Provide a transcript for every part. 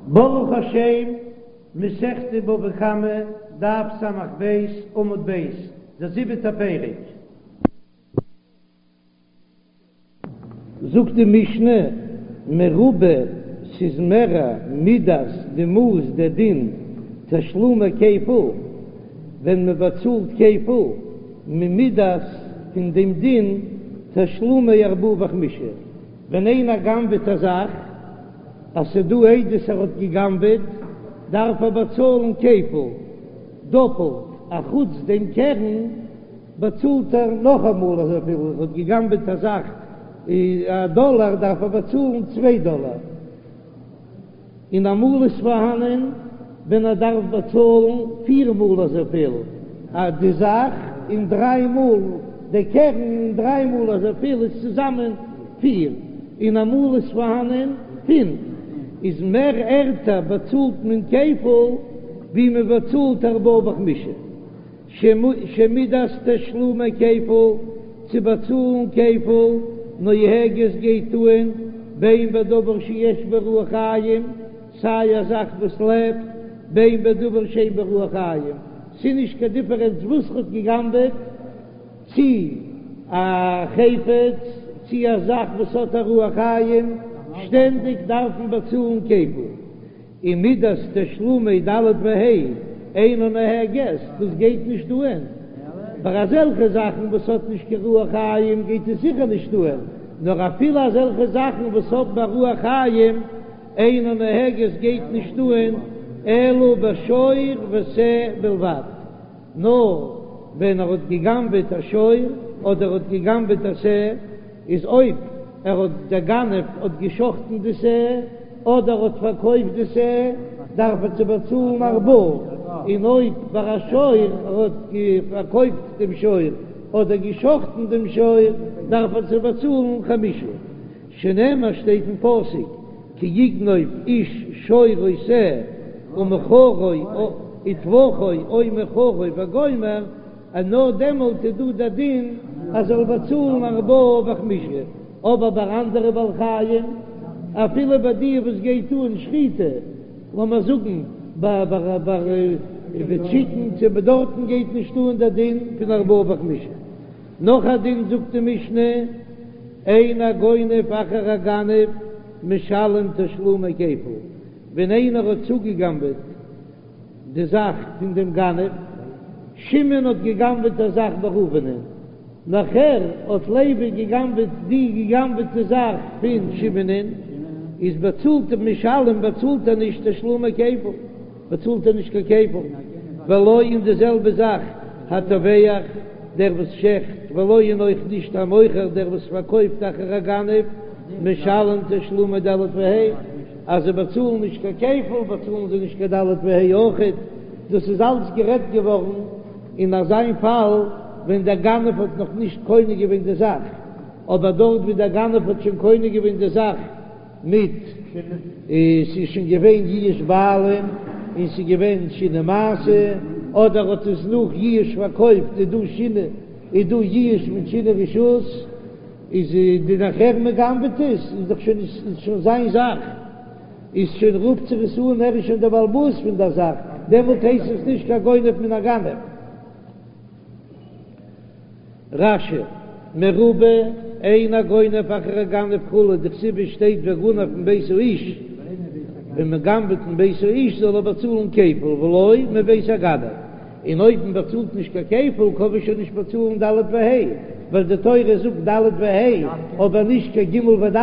ברוך השם, מסכת בבא קמא, דף ס"ב, עמוד ב', דער זיבעטער פרק. זאגט די משנה, מרובה, ס'איז מערער, מידת, די מאס, דער דין, תשלומי כפל, ווען מען באצאלט כפל, ממידת, פון דעם דין, תשלומי ארבעה וחמישה, ווען איינער גנב'עט א זאך, אז ס'דא עדות ער האט גע'גנב'עט, דארף ער באצאלן כפל, דאפלט, אחוץ דעם קרן באצאלט ער נאכאמאל אזויפיל, ער האט גע'גנב'עט א זאך א דאלאר דארף ער באצאלן צוויי דאלאר. און אמאל איז פארהאנען ווען ער דארף באצאלן פיר מאל אזויפיל א די זאך און דריי מאל די קרן און דריי מאל אזויפיל איז צוזאמען פיר און אמאל איז פארהאנען פינף איז מער ערטער באצאלט מען כפל ווי מען באצאלט ארבעה וחמישה. שמידת תשלומי כפל, צו באצאלן כפל, נוהגת גייט אן, בין בדבר שיש בו רוח חיים, סיי א זאך וואס לעבט, בין בדבר שאין בו רוח חיים, ס'איז נישט קיין דיפערענץ וואס ר'האט גע'גנב'עט, צי א חפץ, צי א זאך וואס האט א רוח חיים, שטענדיג דארף מען באצאלן כפל. און מידת תשלומי ד' וה' אינה נוהגת, דאס גייט נישט אהן, ביי אזעלכע זאכן וואס האט נישט קיין רוח חיים גייט עס זיכער נישט אהן, נאר אפילו אזעלכע זאכן וואס האבן א רוח חיים אינה נוהגת גייט נישט אהן, אלא בשור ושה בלבד, נאר ווען ער האט גע'גנב'עט א שור אדער האט גע'גנב'עט א שה, איז אויב ער האט דער גנב האט גע'שחט'ן די שה אדער האט פארקויפט די שה דארף ער צו באצאלן ארבעה, און אויב ביי א שור ער האט פארקויפט דעם שור אדער גע'שחט'ן דעם שור דארף ער צו באצאלן חמשה, שנאמר שטייט אין פסוק כי יגנוב איש שור או שה ומכרו וטבחו או מכרו וגומר, אז נאר דעמאלט איז דא דער דין אז זאל באצאלן ארבעה וחמישה, אבער ביי אנדערע בעלי חיים, אפילו ביי די וואס גייט אן שחיטה, לאמיר זאגן ביי טשיקן צו ביי דארטן גייט נישט אן דער דין פון ארבעה וחמישה. נאך א דין זאגט די משנה, אין הגונב אחר הגנב משלם תשלומי כפל, ווען איינער האט צוגעגנבעט די זאך פון דעם גנב, שמעון האט געגנבעט א זאך ביי ראובנ'ען, נאכער האט לוי געגנבעט די געגנבעטע זאך פון שמעונ'ען, איז באצאלט ער משלם באצאלט ער נישט תשלומי כפל, באצאלט ער נישט קיין כפל, ולא און די זעלבע זאך הטובח דער וואס שעכט, ולא און אויך נישט המוכר דער וואס פארקויפט אחר הגנב, משלם תשלומי ד' וה'. אז זיי באצאלן נישט קיין כפל באצאלן זיי נישט קיין ד' וה' אויכעט, דאס איז אלץ גערעדט געווארן אין אזיין פאל ווען דער גנב האט נאך נישט קונה געווען די זאך, אבער דארט ווי דער גנב האט שוין קונה געווען די זאך מיט ס'איז שוין געווען יאוש בעלים און ס'איז געווען שינוי מעשה, אדער האט עס נאך יאוש פארקויפט איז דא שינוי איז דא יאוש מיט שינוי רשות. איז די נאכער מען גנב'עט עס איז דאך שוין איז שוין זיין זאך איז שוין רופט זיך עס אן ער איז שוין דער בעל הבית פון דער זאך דעמאלט הייסט עס נישט קיין גונב מן הגנב. רש"י, מרובה אין הגונב אחר הגנב כו' דכתיב שטייט וגנב מבית האיש, ווען מען גנב'עט מבית האיש זאל ער באצאלן כפל ולא מבית הגנב. און אויב מען באצאלט נישט קיין כפל קען מען שוין נישט באצאלן ד' וה', ווייל די תורה זאגט ד' וה' אבער נישט קיין ג' וד',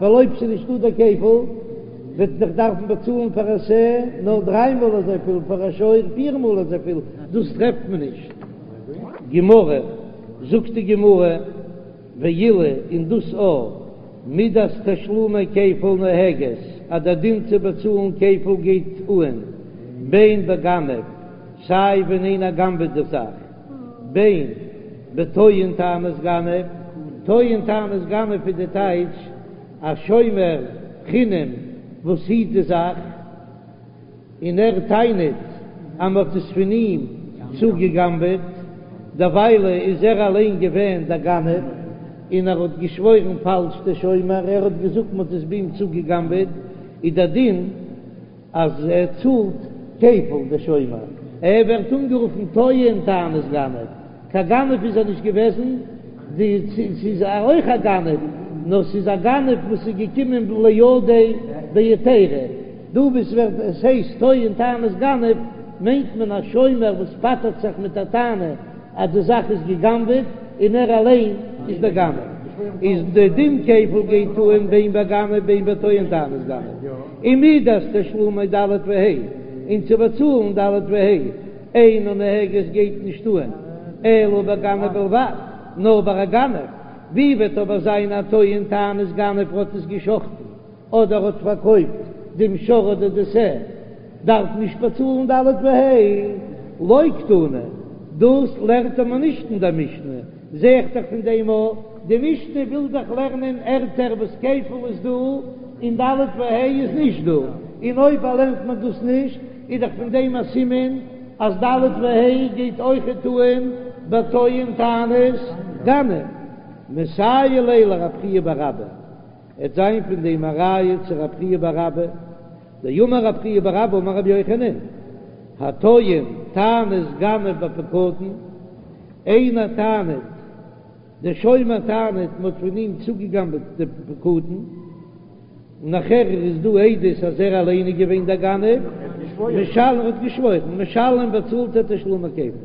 ווייל אויב ס'איז נישטא דער כפל וועט מען דאך דארפן באצאלן פאר א שה נאר דריי מאל אזויפיל, פאר א שור פיר מאל אזויפיל, דאס טרעפט מען נישט. גמרא, זאגט די גמרא, ואילו און דאס א מידת תשלומי כפל נוהגת, אז דער דין צו באצאלן כפל גייט אהן בין בגנב, סיי ווען איינער גנב'עט די זאך, בין בטוען טענת גנב, טוען טענת גנב איז די טייטש א שומר חינם וואס היט די זאך, און ער טענה'ט אז מ'האט עס פון אים צוגעגנב'עט, דערוויילע איז ער אליין געווען דער גנב, און ער האט געשוואוירן פאלש דער שומר, ער האט געזאגט מ'האט עס ביי אים צוגעגנב'עט, איז דער דין. אז ער צאלט כפל דער שומר, ער ווערט אנגערופן טוען טענת גנב, קיין גנב איז ער נישט געוועזן, די ס'איז אויך א גנב, נאר ס'איז א גנב וואס איז געקומען לידיה בהיתירא, דא וואס ווערט עס הייסט טוען טענת גנב מיינט מען א שומר וואס פטר'ט זיך מיט א טענה אז די זאך איז גע'גנב'עט און ער אליין איז דער גנב, איז די דין כפל גייט אן בין בגנב בין בטוען טענת גנב, און מידת תשלומי ד' וה' און צו באצאלן ד' וה' אינה נוהגת גייט נישט אן אלא בגנב בלבד, נאר ביי א גנב, ווי וועט אבער זיין א טוען טענת גנב האט עס גע'שחט'ן אדער האט פארקויפט דעם שור אדער די שה, דארף נישט באצאלן ד' וה', לא קתני, דאס לערנט מען נישט אין דער משנה, זע איך דאך פון דעם א, די משנה וויל דאך לערנען ערטער וואס כפל איז דא און ד' וה' איז נישט דא, און אויב לערנט מען דאס נישט איז דאך פון דעם א סימן אז ד' וה' גייט אויכעט אן בטוען טענת גנב, מסייע ליה לרב חייא בר אבא. עט זיין פון דעם א ראיה צו רב חייא בר אבא, דאמר רב חייא בר אבא אמר רבי יוחנן, הטוען טענת גנב בפקדון, איינער טענה'ט, דער שומר טענה'ט מ'האט פון אים צוגעגנבעט די פקדון, נאכער איז דא עדות אז ער אליין איז געווען דער גנב, משלם האט געשוואוירן, משלם באצאלט ער תשלומי כפל,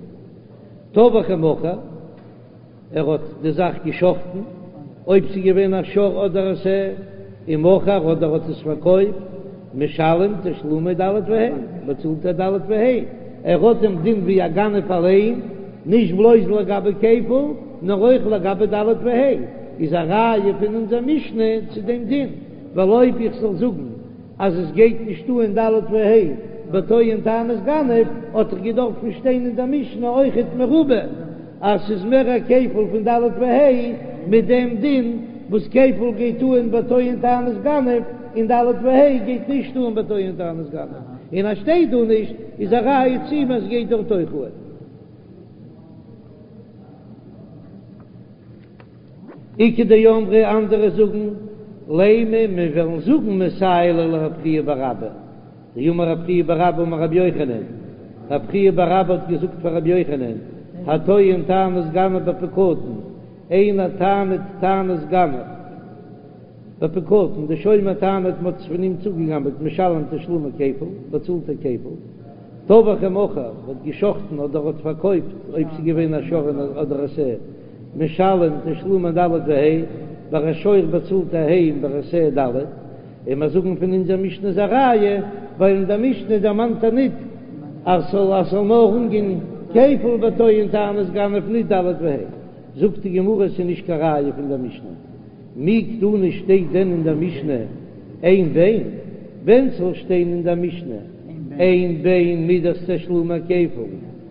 טבח ומכר. ער האט די זאך געשחטן, אויב ס'איז געווען א שור אדער א שה, ומכר אדער האט עס פארקויפט, משלם תשלומי ד' וה', באצאלט ער ד' וה', ער האט דעם דין ווי א גנב אליין, נישט בלויז לגבי כפל, נאר אויך לגבי ד' וה', איז א ראיה פון אונזער משנה צו דעם דין, ווייל אויב איך זאל זאגן אז עס גייט נישט אן ד' וה' בטוען טענת גנב, האט דאך געדארפן שטיין אין דער משנה אויכעט מרובה אז ס'איז מער א כפל פון ד' וה' מיט דעם דין וואס כפל גייט אן בטוען טענת גנב און ד' וה' גייט נישט אן בטוען טענת גנב, און אז שטייט דא נישט איז א ראיה צו אים אז ס'גייט דארט אויך אן. איכא דאמרי אנדערע זאגן, לימא מיר וועלן זאגן מסייע ליה לרב חייא בר אבא, דאמר רב חייא בר אבא אמר רבי יוחנן, רב חייא בר אבא האט געזאגט פאר רבי יוחנן, הטוען טענת גנב בפקדון, איינער טענה'ט טענת גנב בפקדון, די שומר טענה'ט מ'האט עס פון אים צוגעגנבעט משלם תשלומי כפל, באצאלט ער כפל. טבח ומכר, האט געשחטן אדער האט פארקויפט, אויב ס'איז געווען א שור אדער א שה, משלם תשלומי ד' וה', ביי א שור באצאלט ער ה' און ביי א שה ד', און מיר זאגן פון אונזער משנה איז א ראיה, ווייל אין דער משנה דערמאנט ער ניט אז ס'זאל אז ס'זאל נאר אנגיין כפל בטוען טענת גנב ניט ד' וה'. זאגט די גמרא ס'איז נישט קיין ראיה פון דער משנה. מי קתני שטייט דען אין דער משנה אין בין? ווען ס'זאל שטיין אין דער משנה אין בין מידת תשלומי כפל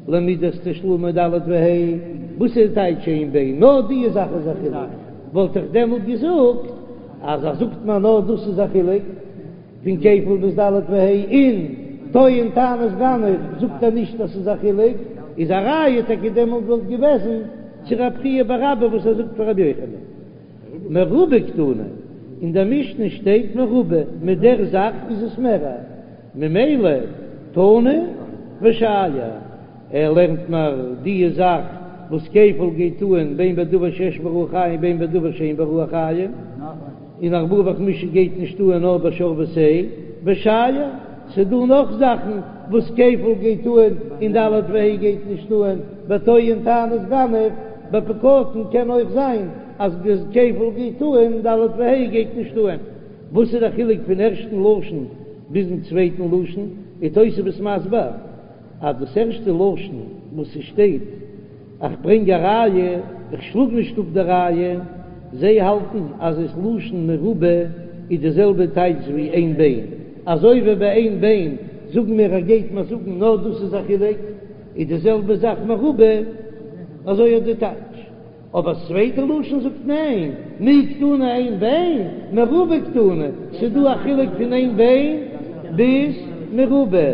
למידת תשלומי ד' וה', וואס איז די טייטש אין בין? נאר די זאך איז א חילוק, וואלט איך דעמאלט געזאגט אז אז זאגט מען נאר דאס איז א חילוק פון כפל ביז ד' וה', און טוען טענת גנב זאגט ער נישט אז ס'איז א חילוק, איז א ראיה טאקע דעמאלט וואלט געוועזן צו רב חייא בר אבא וואס ער זאגט פאר רבי יוחנן. מרובה קתני, אין דער משנה שטייט מרובה, מיט דער זאך איז עס מערער, ממילא תנא ושייר, ער לערנט מיר די זאך וואס כפל גייט אן בין בדבר שיש בו רוח חיים בין בדבר שאין בו רוח חיים, און ארבעה וחמישה גייט נישט אן נאר בשור ושה, ושייר, ס'דא נאך זאכן וואס כפל גייט אן און ד' וה' גייט נישט אן, בטוען טענת גנב, בפקדון קען אויך זיין אז די כפל גייט אן ד' וה' גייט נישט אן. וואס איז די חילוק פון ערשטן לשון ביזן צווייטן לשון? איז תוספות מסביר אז דאס ערשטע לשון וואס ס'שטייט איך ברענג א ראיה, איך שלאג נישט אפ די ראיה, זיי האלטן אז עס לשון מרובה איז די זעלבע טייטש ווי אין בין, אזוי ווי ביי אין בין זאגן מיר ער גייט מיר זאגן נאר דאס איז א חילוק, איז די זעלבע זאך מרובה, אזוי איז די טייטש. אבער צווייטע לשון זאגט ניין, מי קתני אין בין, מרובה קתני, ס'דא א חילוק פון אין בין ביז מרובה.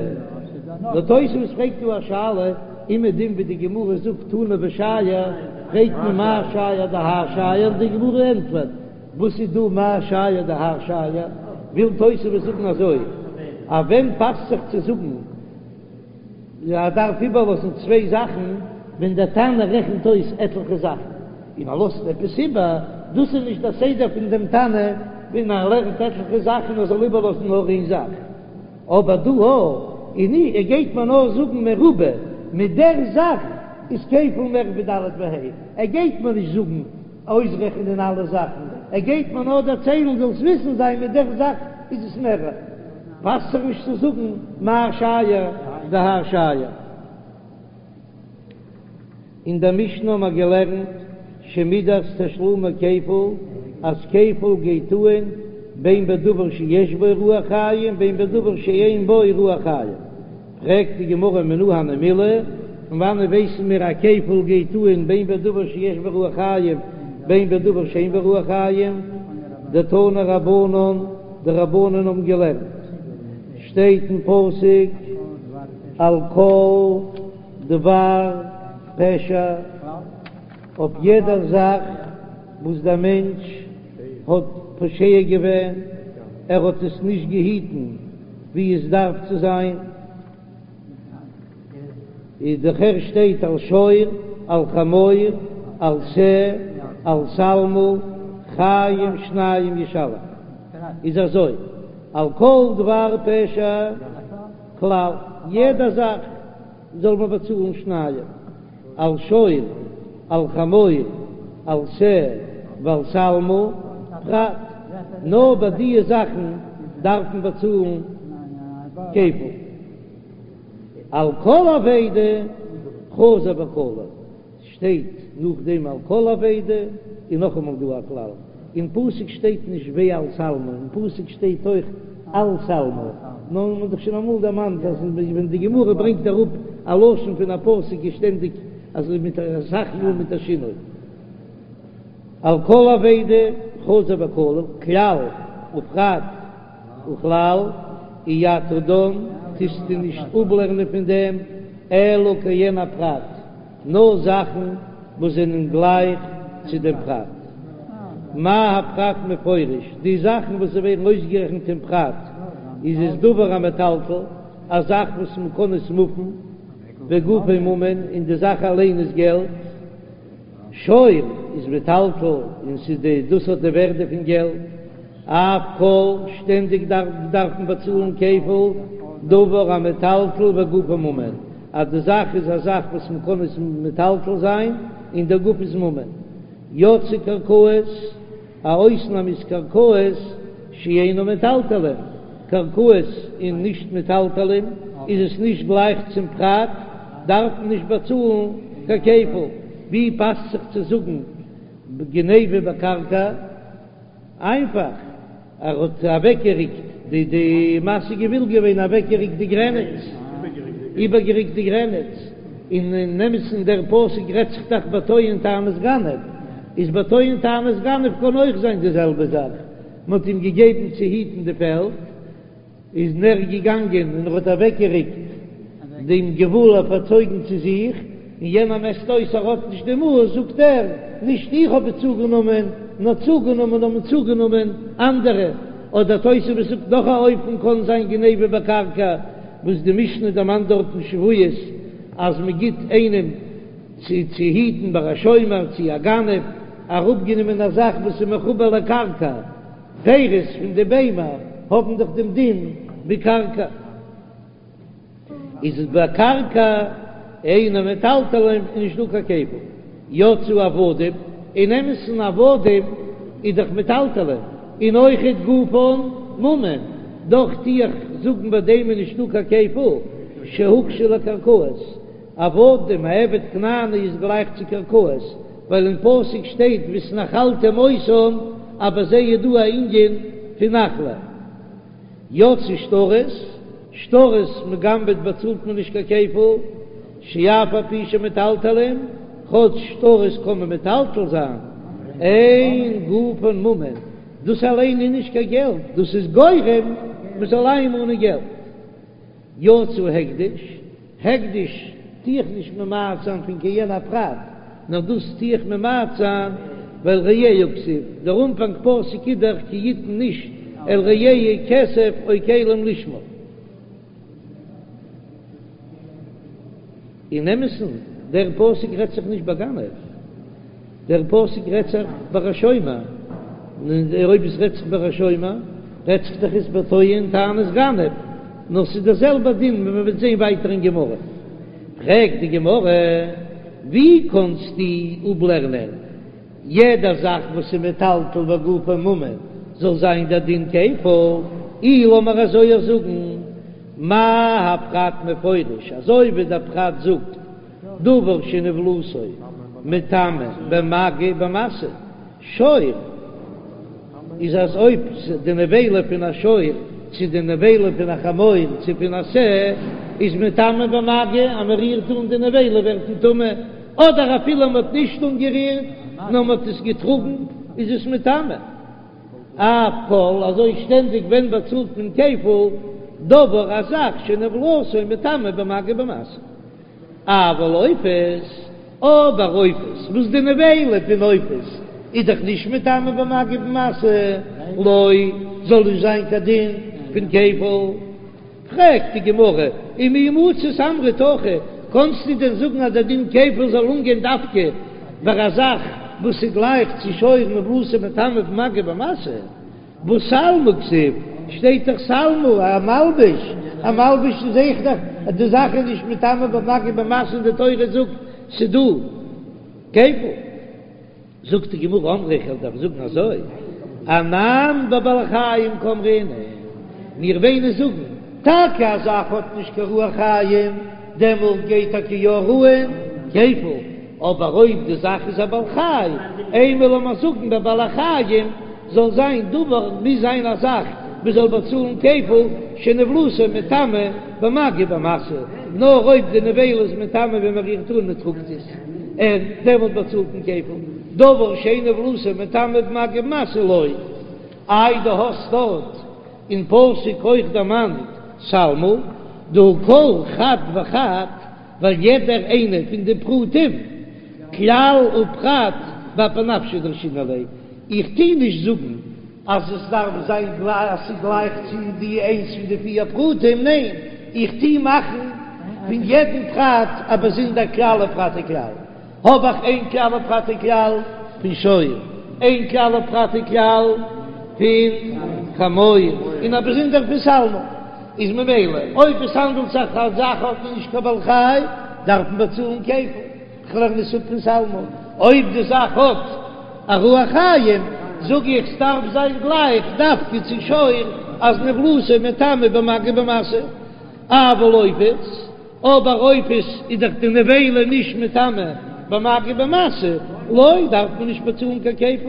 נאר תוספות פרעגט דא א שאלה, אומעדום ווי די גמרא זאגט תנא ושייר, פרעגט מען מאי שייר דהאי שייר, די גמרא ענטפערט, וואס איז דא מאי שייר דהאי שייר, וויל תוספות זאגן אזוי. אז ווען פאסט זיך צו זאגן ער דארף איבערלאזן צוויי זאכן, ווען דער תנא רעכנט אויס עטליכע זאכן און ער לאזט עפעס איבער, דאס איז נישט דער סדר פון דעם תנא ווען ער לערנט עטליכע זאכן ער זאל איבערלאזן נאר איין זאך. אבער דא און ער גייט מיר נאר זאגן מרובה, מיט דער זאך איז כפל מער ווי ד' וה', ער גייט מיר נישט זאגן אויסרעכענען אלע זאכן, ער גייט מיר נאר דערציילן זאלסט וויסן זיין מיט דער זאך איז עס מערער, פאסט זיך נישט צו זאגן מה שייר דהאי שייר. אין דער משנה האבן מיר געלערנט שמידת תשלומי כפל, אז כפל גייט אהן בין בדבר שיש בו רוח חיים בין בדבר שאין בו רוח חיים. פרעגט די גמרא מנא הני מילי, פון וואנעט ווייסן מיר אז כפל גייט אהן בין בדבר שיש בו רוח חיים בין בדבר שאין בו רוח חיים? דתנו רבנן, די רבנן האבן געלערנט, שטייט אין פסוק על כל דבר פשע, אויף יעדער זאך וואס דער מענטש האט פושע געווען, ער האט עס נישט געהיטן ווי עס דארף צו זיין, איז דאך שטייט על שור, על חמור, על שה, על שלמה, חיים שניים ישלם, איז אזוי, על כל דבר פשע כלל, יעדע זאך זאל מען באצאלן שניים, על שור, על חמור, על שה ועל שלמה, פרט, נאר ביי דיע זאכן דארף מען באצאלן כפל. על כל אבידה חזר וכלל. שטייט נאכדעם על כל אבידה, און נאכאמאל דא א כלל, אין פסוק שטייט נישט ועל שלמה, אין פסוק שטייט אויך על שלמה, נאר מען האט דאך שוין אמאל דערמאנט אז ווען די גמרא ברענגט אראפ א לשון פון א פסוק איז שטענדיג אזוי מיט אסאך מאל מיט א שינוי. על כל אבידה חזר וכלל, כלל ופרט וכלל, אי אתה דן, טוסטו נישט אפלערנען פון דעם אלא כעין הפרט. נאר זאכן וואס זענען גלייך צו דעם פרט. מה הפרט מפורש, די זאכן וואס ווערן אויסגערעכנט אין פרט, איז עס דבר המטלטל, א זאך וואס מען קען עס מופן, וגופו ממון, און די זאך אליין איז געלט. שור איז מטלטל, און ס'איז די, דאס האט די ווערדע פון געלט. אף כל, שטענדיג דארף מען באצאלן כפל, דבר המטלטל וגופו ממון, אז די זאך איז א זאך וואס מען קען עס מטלטל זיין און דער גוף איז ממון. יצאו קרקעות, א אויסנאם איז קרקעות שאינן מטלטלין, קרקעות איז נישט מטלטלין, איז עס נישט גלייך צום פרט, דארף מען נישט באצאלן קיין כפל. ווי פאסט זיך צו זאגן גניבה בקרקע? איינפאך, ער האט אוועקגעריקט די די מסיג גבול געווען אוועקגעריקט די גרעניץ, איבערגעריקט די גרעניץ, און אין אמת'ן דער פסוק רעדט זיך דאך בטוען טענת גנב, איז בטוען טענת גנב קען אויך זיין די זעלבע זאך, מען האט אים געגעבן צו היטן די פעלד, איז ער געגאנגען און ער האט אוועקגעריקט דעם גבול ער פארצויגן צו זיך, און יענער מעסט אויס ער האט נישט די מאס, זאגט ער, נישט איך האב עס צוגענומען, נאר צוגענומען האבן צוגענומען אנדערע, אדער תוספות זאגט נאך א אופן קען זיין גניבה בקרקע, וואס די משנה דערמאנט דארט אין שבועות אז מען גיט איינעם צו צו היטן ביי א שומר צו א גנב אראפגענומען א זאך וואס איז מחובר לקרקע. פירות פון די ביימער האבן דאך דעם דין ווי קרקע, איז עס ביי קרקע אינן מטלטלין איז נישט דא קיין כפל, יצאו עבדים, אין אמת'ן עבדים איז דאך מטלטלין, און אויכעט גופן ממון, דאך טו איך זאגן ביי דעם איז נישט דא קיין כפל, שהוקשו לקרקעות. עבדים, א עבד כנעני איז גלייך צו קרקעות, ווייל אין פסוק שטייט והתנחלתם אותם, אז ביי זיי איז דא א ענין פון נחלה. יצאו שטרות, שטרות מ'גנב'עט באצאלט מען נישט קיין כפל, שאף על פי שמטלטלין, כאטש שטרות קען מען מטלטל זיין, אין גופן ממון, דאס אליין איז נישט קיין געלט, דאס איז גורם מ'זאל איינמאנען געלט. יצא הקדש, הקדש טו איך נישט ממעט זיין פון כעין הפרט, נאר דאס טו איך ממעט זיין ווייל רעהו כתיב, דער אנפאנג פסוק איז דאך כי יתן איש אל רעהו כסף או כלים לשמור. אין אמת'ן, דער פסוק רעדט זיך נישט ביי גנב, דער פסוק רעדט זיך ביי א שומר, און אויב עס רעדט זיך ביי א שומר, רעדט זיך דאך עס ביי טוען טענת גנב, נאר ס'איז דער זעלבער דין ווי מען וועט זען ווייטער אין גמרא. פרעגט די גמרא, ווי קענסטו אפלערנען יעדע זאך וואס איז מטלטל וגופו ממון זאל זיין דער דין כפל? אי לאמיר אזוי זאגן, מה הפרט מפורש, אזוי ווי דער פרט זאגט, דבר שנבלתו מטמא במגע ובמשא, שור איז אז אויב די נבילה פון א שור צו די נבילה פון א חמור צו פון א שה איז מטמא במגע, אז מען רירט אן די נבילה ווערט מען טמא, אדער אפילו מען האט נישט אנגערירט נאר מען האט עס געטראגן איז עס מטמא. אף כל, אזוי שטענדיג ווען באצאלט מען כפל, דבר א זאך שנבלתו מטמא במגע ובמשא. אבל עופות, אבער עופות, וואס די נבילה פון עופות איז דאך נישט מטמא במגע ובמשא, לא, זאל נישט זיין קיין דין פון כפל. פרעגט די גמרא, ומי מצית אמרת הכי, קאנסטו דען זאגן אז דער דין כפל זאל אנגיין דווקא ביי א זאך וואס איז גלייך צו שור נבלתו מטמא במגע ובמשא? והא שלמה כתיב, שטייט דאך שלמה, א מלבוש, א מלבוש איז אויך דאך אז די זאך איז נישט מטמא במגע ובמשא און די תורה זאגט ס'דא כפל. זאגט די גמרא אמרי איך וועל דאך זאגן אזוי, אנן בבעלי חיים קאמרינן, מיר וועלן זאגן טאקע א זאך האט נישט קיין רוח חיים, דעמאלט גייט טאקע יא אן כפל, אבער אויב די זאך איז א בעל חי, אימא לאמיר זאגן בבעלי חיים זאל זיין דבר מוז זיין א זאך מען זאל באצאלן כפל שנבלתו מטמא במגע ובמשא, נאר אויב די נבילה איז מטמא ווען מען רירט אן מען טראגט עס, און דעמאלט באצאלט מען כפל, דבר שאין נבלתו מטמא במגע ובמשא לא. איי דו האסט דארט אין פסוק אויך דערמאנט שלמה, דהא כל חד וחד, ווייל יעדער איינער פון די פרטים, כלל ופרט באפי נפשיה דרשינן ליה, איך טוה נישט זאגן אז עס דארף זיין גלייך אז ס'איז גלייך צו די איינס פון די פיר פרטים, ניין, איך טוה מאכן פון יעדן פרט א באזונדער כלל ופרט וכלל. האב איך איין כלל ופרט וכלל פון שור, איין כלל ופרט וכלל פון חמור, און א באזונדער פון שלמה, איז ממילא אויב עס האנדלט זיך א זאך האט מען נישט קיין בעל חי, דארף מען באצאלן כפל, כ'לערן עס אפ פון שלמה, אויב די זאך האט א רוח חיים, זאג איך ס'דארף זיין גלייך דווקא צו שור אז נבלתו מטמא במגע ובמשא, אבל עופות. אבער עופות איז דאך די נבילה נישט מטמא במגע ובמשא, לא דארף מען נישט באצאלן קיין כפל.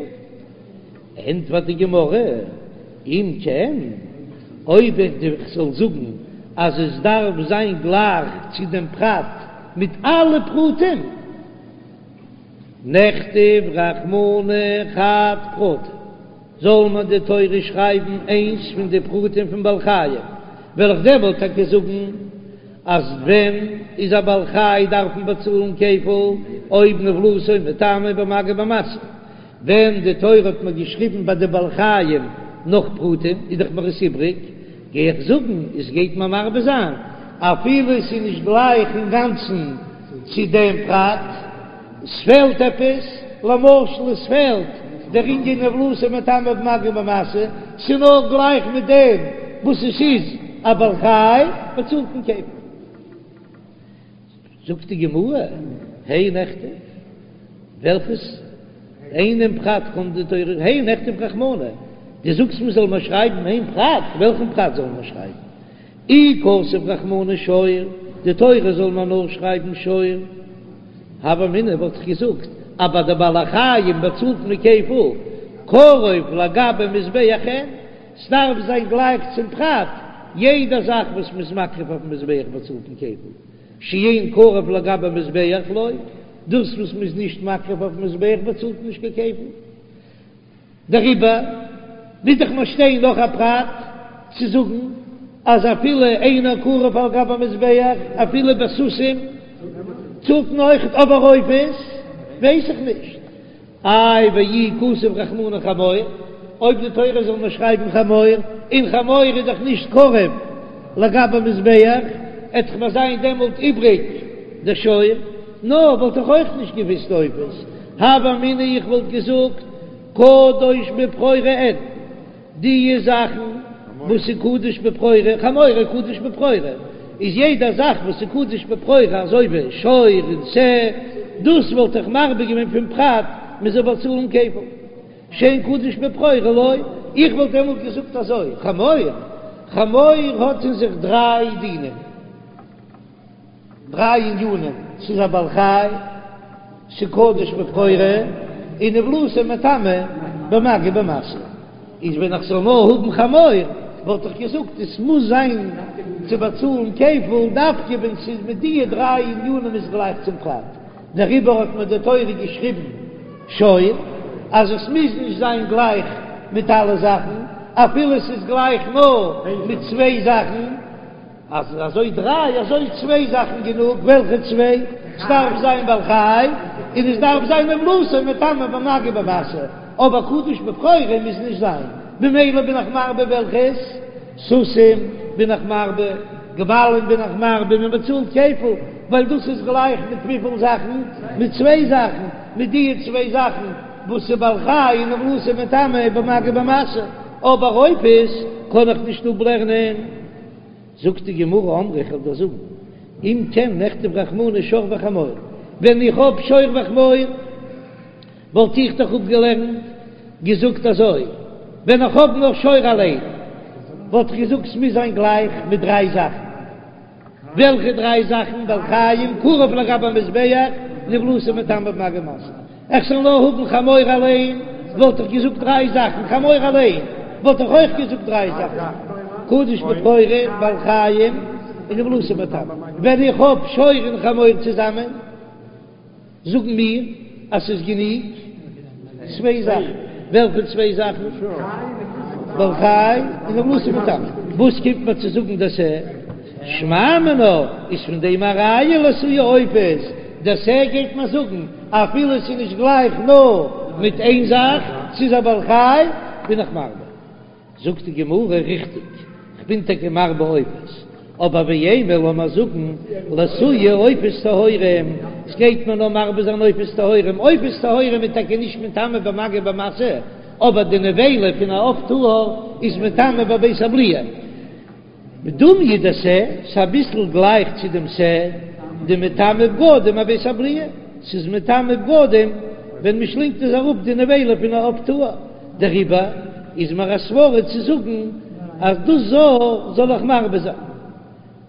ענטפערט די גמרא, אם כן, אויב איך זאל זאגן אז עס דארף זיין גלייך צו דעם פרט מיט אלע פרטים, נכתוב רחמנא חד פרטא, זאל מיר די תורה שרייבן איינס פון די פרטים פון בעל חיים, וועל איך דעמאלט טאקע זאגן אז ווען איז א בעל חי דארף מען באצאלן כפל אויב נבלתו מטמא במגע ובמשא, ווען די תורה האט מיר געשריבן ביי די בעל חיים נאך פרטים איז דאך מיר עס איבריג, גיי איך זאגן עס גייט מיר מרבה זיין אפילו עס איז נישט גלייך אינגאנצן צו דעם פרט. עס פעלט עפעס, למשל עס פעלט דער ענין נבלתו מטמא במגע ובמשא, ס'איז נאר גלייך מיט דעם וואס עס איז א בעל חי, באצאלט מען כפל. זאגט די גמרא, הי נכתוב, וועלכעס איינעם פרט קומט די תורה, הי נכתוב רחמנא, דו זאגסט מען זאל מיר שרייבן איין פרט, וועלכן פרט זאל מען שרייבן? אי כתב רחמנא שור, די תורה זאל מיר נאר שרייבן שור, הוה אמינא וואלט איך געזאגט אז ביי די בעלי חיים באצאלט מען כפל, קרוב לגבי מזבח אין, ס'דארף זיין גלייך צום פרט, יעדע זאך וואס מ'איז מקריב אויפן מזבח באצאלט מען כפל, שאין קרוב לגבי מזבח לא, דאס וואס מ'איז נישט מקריב אויפן מזבח באצאלט מען נישט קיין כפל. דעריבער מוז דאך מיר שטיין נאך א פרט צו זאגן אז אפילו אינו קרב על גבי המזבח אפילו בסוסים צאלט מען אויכעט אבער עופות ווייס איך נישט. איי ואי כתב רחמנא חמור, אויב די תורה זאל מיר שרייבן חמור, און חמור איז דאך נישט קרב לגבי מזבח, עט דאך מיר זיין דעמאלט איבריג. דשור, נאר וואלט איך אויך נישט געוויסט עופות, הוה אמינא איך וואלט געזאגט קדוש בבכורה אין. די זאכן וואס איז קדוש בבכורה, חמור קדוש בבכורה, איז יעדע זאך וואס איז קדוש בבכורה אזוי ווי שור און שה, דאס וואלט איך מרבה געווען פון פרט מען זאל באצאלן כפל, שאין קדוש בבכורה לא, איך וואלט דעמאלט געזאגט אזוי, חמור, חמור האט אין זיך דריי דינים. דריי ענינים, ס'איז א בעל חי, ס'איז קדוש בבכורה, און נבלתו מטמא במגע ובמשא. איז ווען איך זאל נאר האבן חמור, וואלט איך געזאגט עס מוז זיין צו באצאלן כפל דווקא ווען ס'איז מיט די דריי ענינים איז גלייך צום פרט. דעריבער האט מיר די תורה געשריבן שור, אז עס מוז נישט זיין גלייך מיט אלע זאכן, אפילו ס'איז גלייך נאר מיט צוויי זאכן. אז אזוי דריי אזוי צוויי זאכן גענוג, וועלכע צוויי? ס'דארף זיין בעל חי, און עס דארף זיין נבלתו מטמא במגע ובמשא, אבער קדוש בבכורה מוז נישט זיין, במילא בין איך מרבה וועלכעס? סוסים בין איך מרבה, גמלים בין איך מרבה, מען באצאלט כפל, ווייל דאס איז גלייך מיט וויפיל זאכן? מיט צוויי זאכן, מיט די צוויי זאכן וואס איז בעל חי און נבלתו מטמא במגע ובמשא, אבער עופות קען איך נישט אפלערנען. זאגט די גמרא אמרי איך וועל דיר זאגן, אם כן נכתוב רחמנא שור וחמור, ווען איך האב שור וחמור וואלט איך דאך אפגעלערנט געזאגט אזוי, ווען איך האב נאר שור אליין וואלט איך געזאגט ס'מוז זיין גלייך מיט דריי זאכן, וועלכע דריי זאכן? בעל חיים, קרב לגבי המזבח, נבלתו מטמא במגע ובמשא. איך זאל נאר האבן חמור אליין וואלט איך געזאגט דריי זאכן, חמור אליין וואלט איך אויך געזאגט דריי זאכן, קדוש בבכורה, בעל חיים, און נבלתו מטמא. ווען איך האב שור און חמור צוזאמען, זאגן מיר אז ס'איז גענוג צוויי זאכן. וועלכע צוויי זאכן? בעל חי און נבלתו מטמא. וואס קומט מיר צו זאגן דער שה? שמע מינה איז פון דעם א ראיה לאתויי עופות, דער שה גייט מיר זאגן אפילו עס איז נישט גלייך נאר מיט איין זאך, ס'איז א בעל חי, בין איך מרבה. זאגט די גמרא, ריכטיג, כ'בין טאקע מרבה עופות, אבער ואימא לאמיר זאגן לאתויי עופות טהורים, ס'גייט מיר נאר מרבה זיין עופות טהורים, עופות טהורים איז טאקע נישט מטמא במגע ובמשא, אבער די נבילה פון א עוף טהור איז מטמא בבית הבליעה. דומיא דשה, ס'איז אביסל גלייך צו דעם שה, דמטמא בגדים אבית הבליעה, ס'איז מטמא בגדים ווען מ'שלינגט עס אראפ די נבילה פון א עוף טהור, דעריבער איז מיר א סברא צו זאגן אז דאס זאל זאל איך מרבה זיין.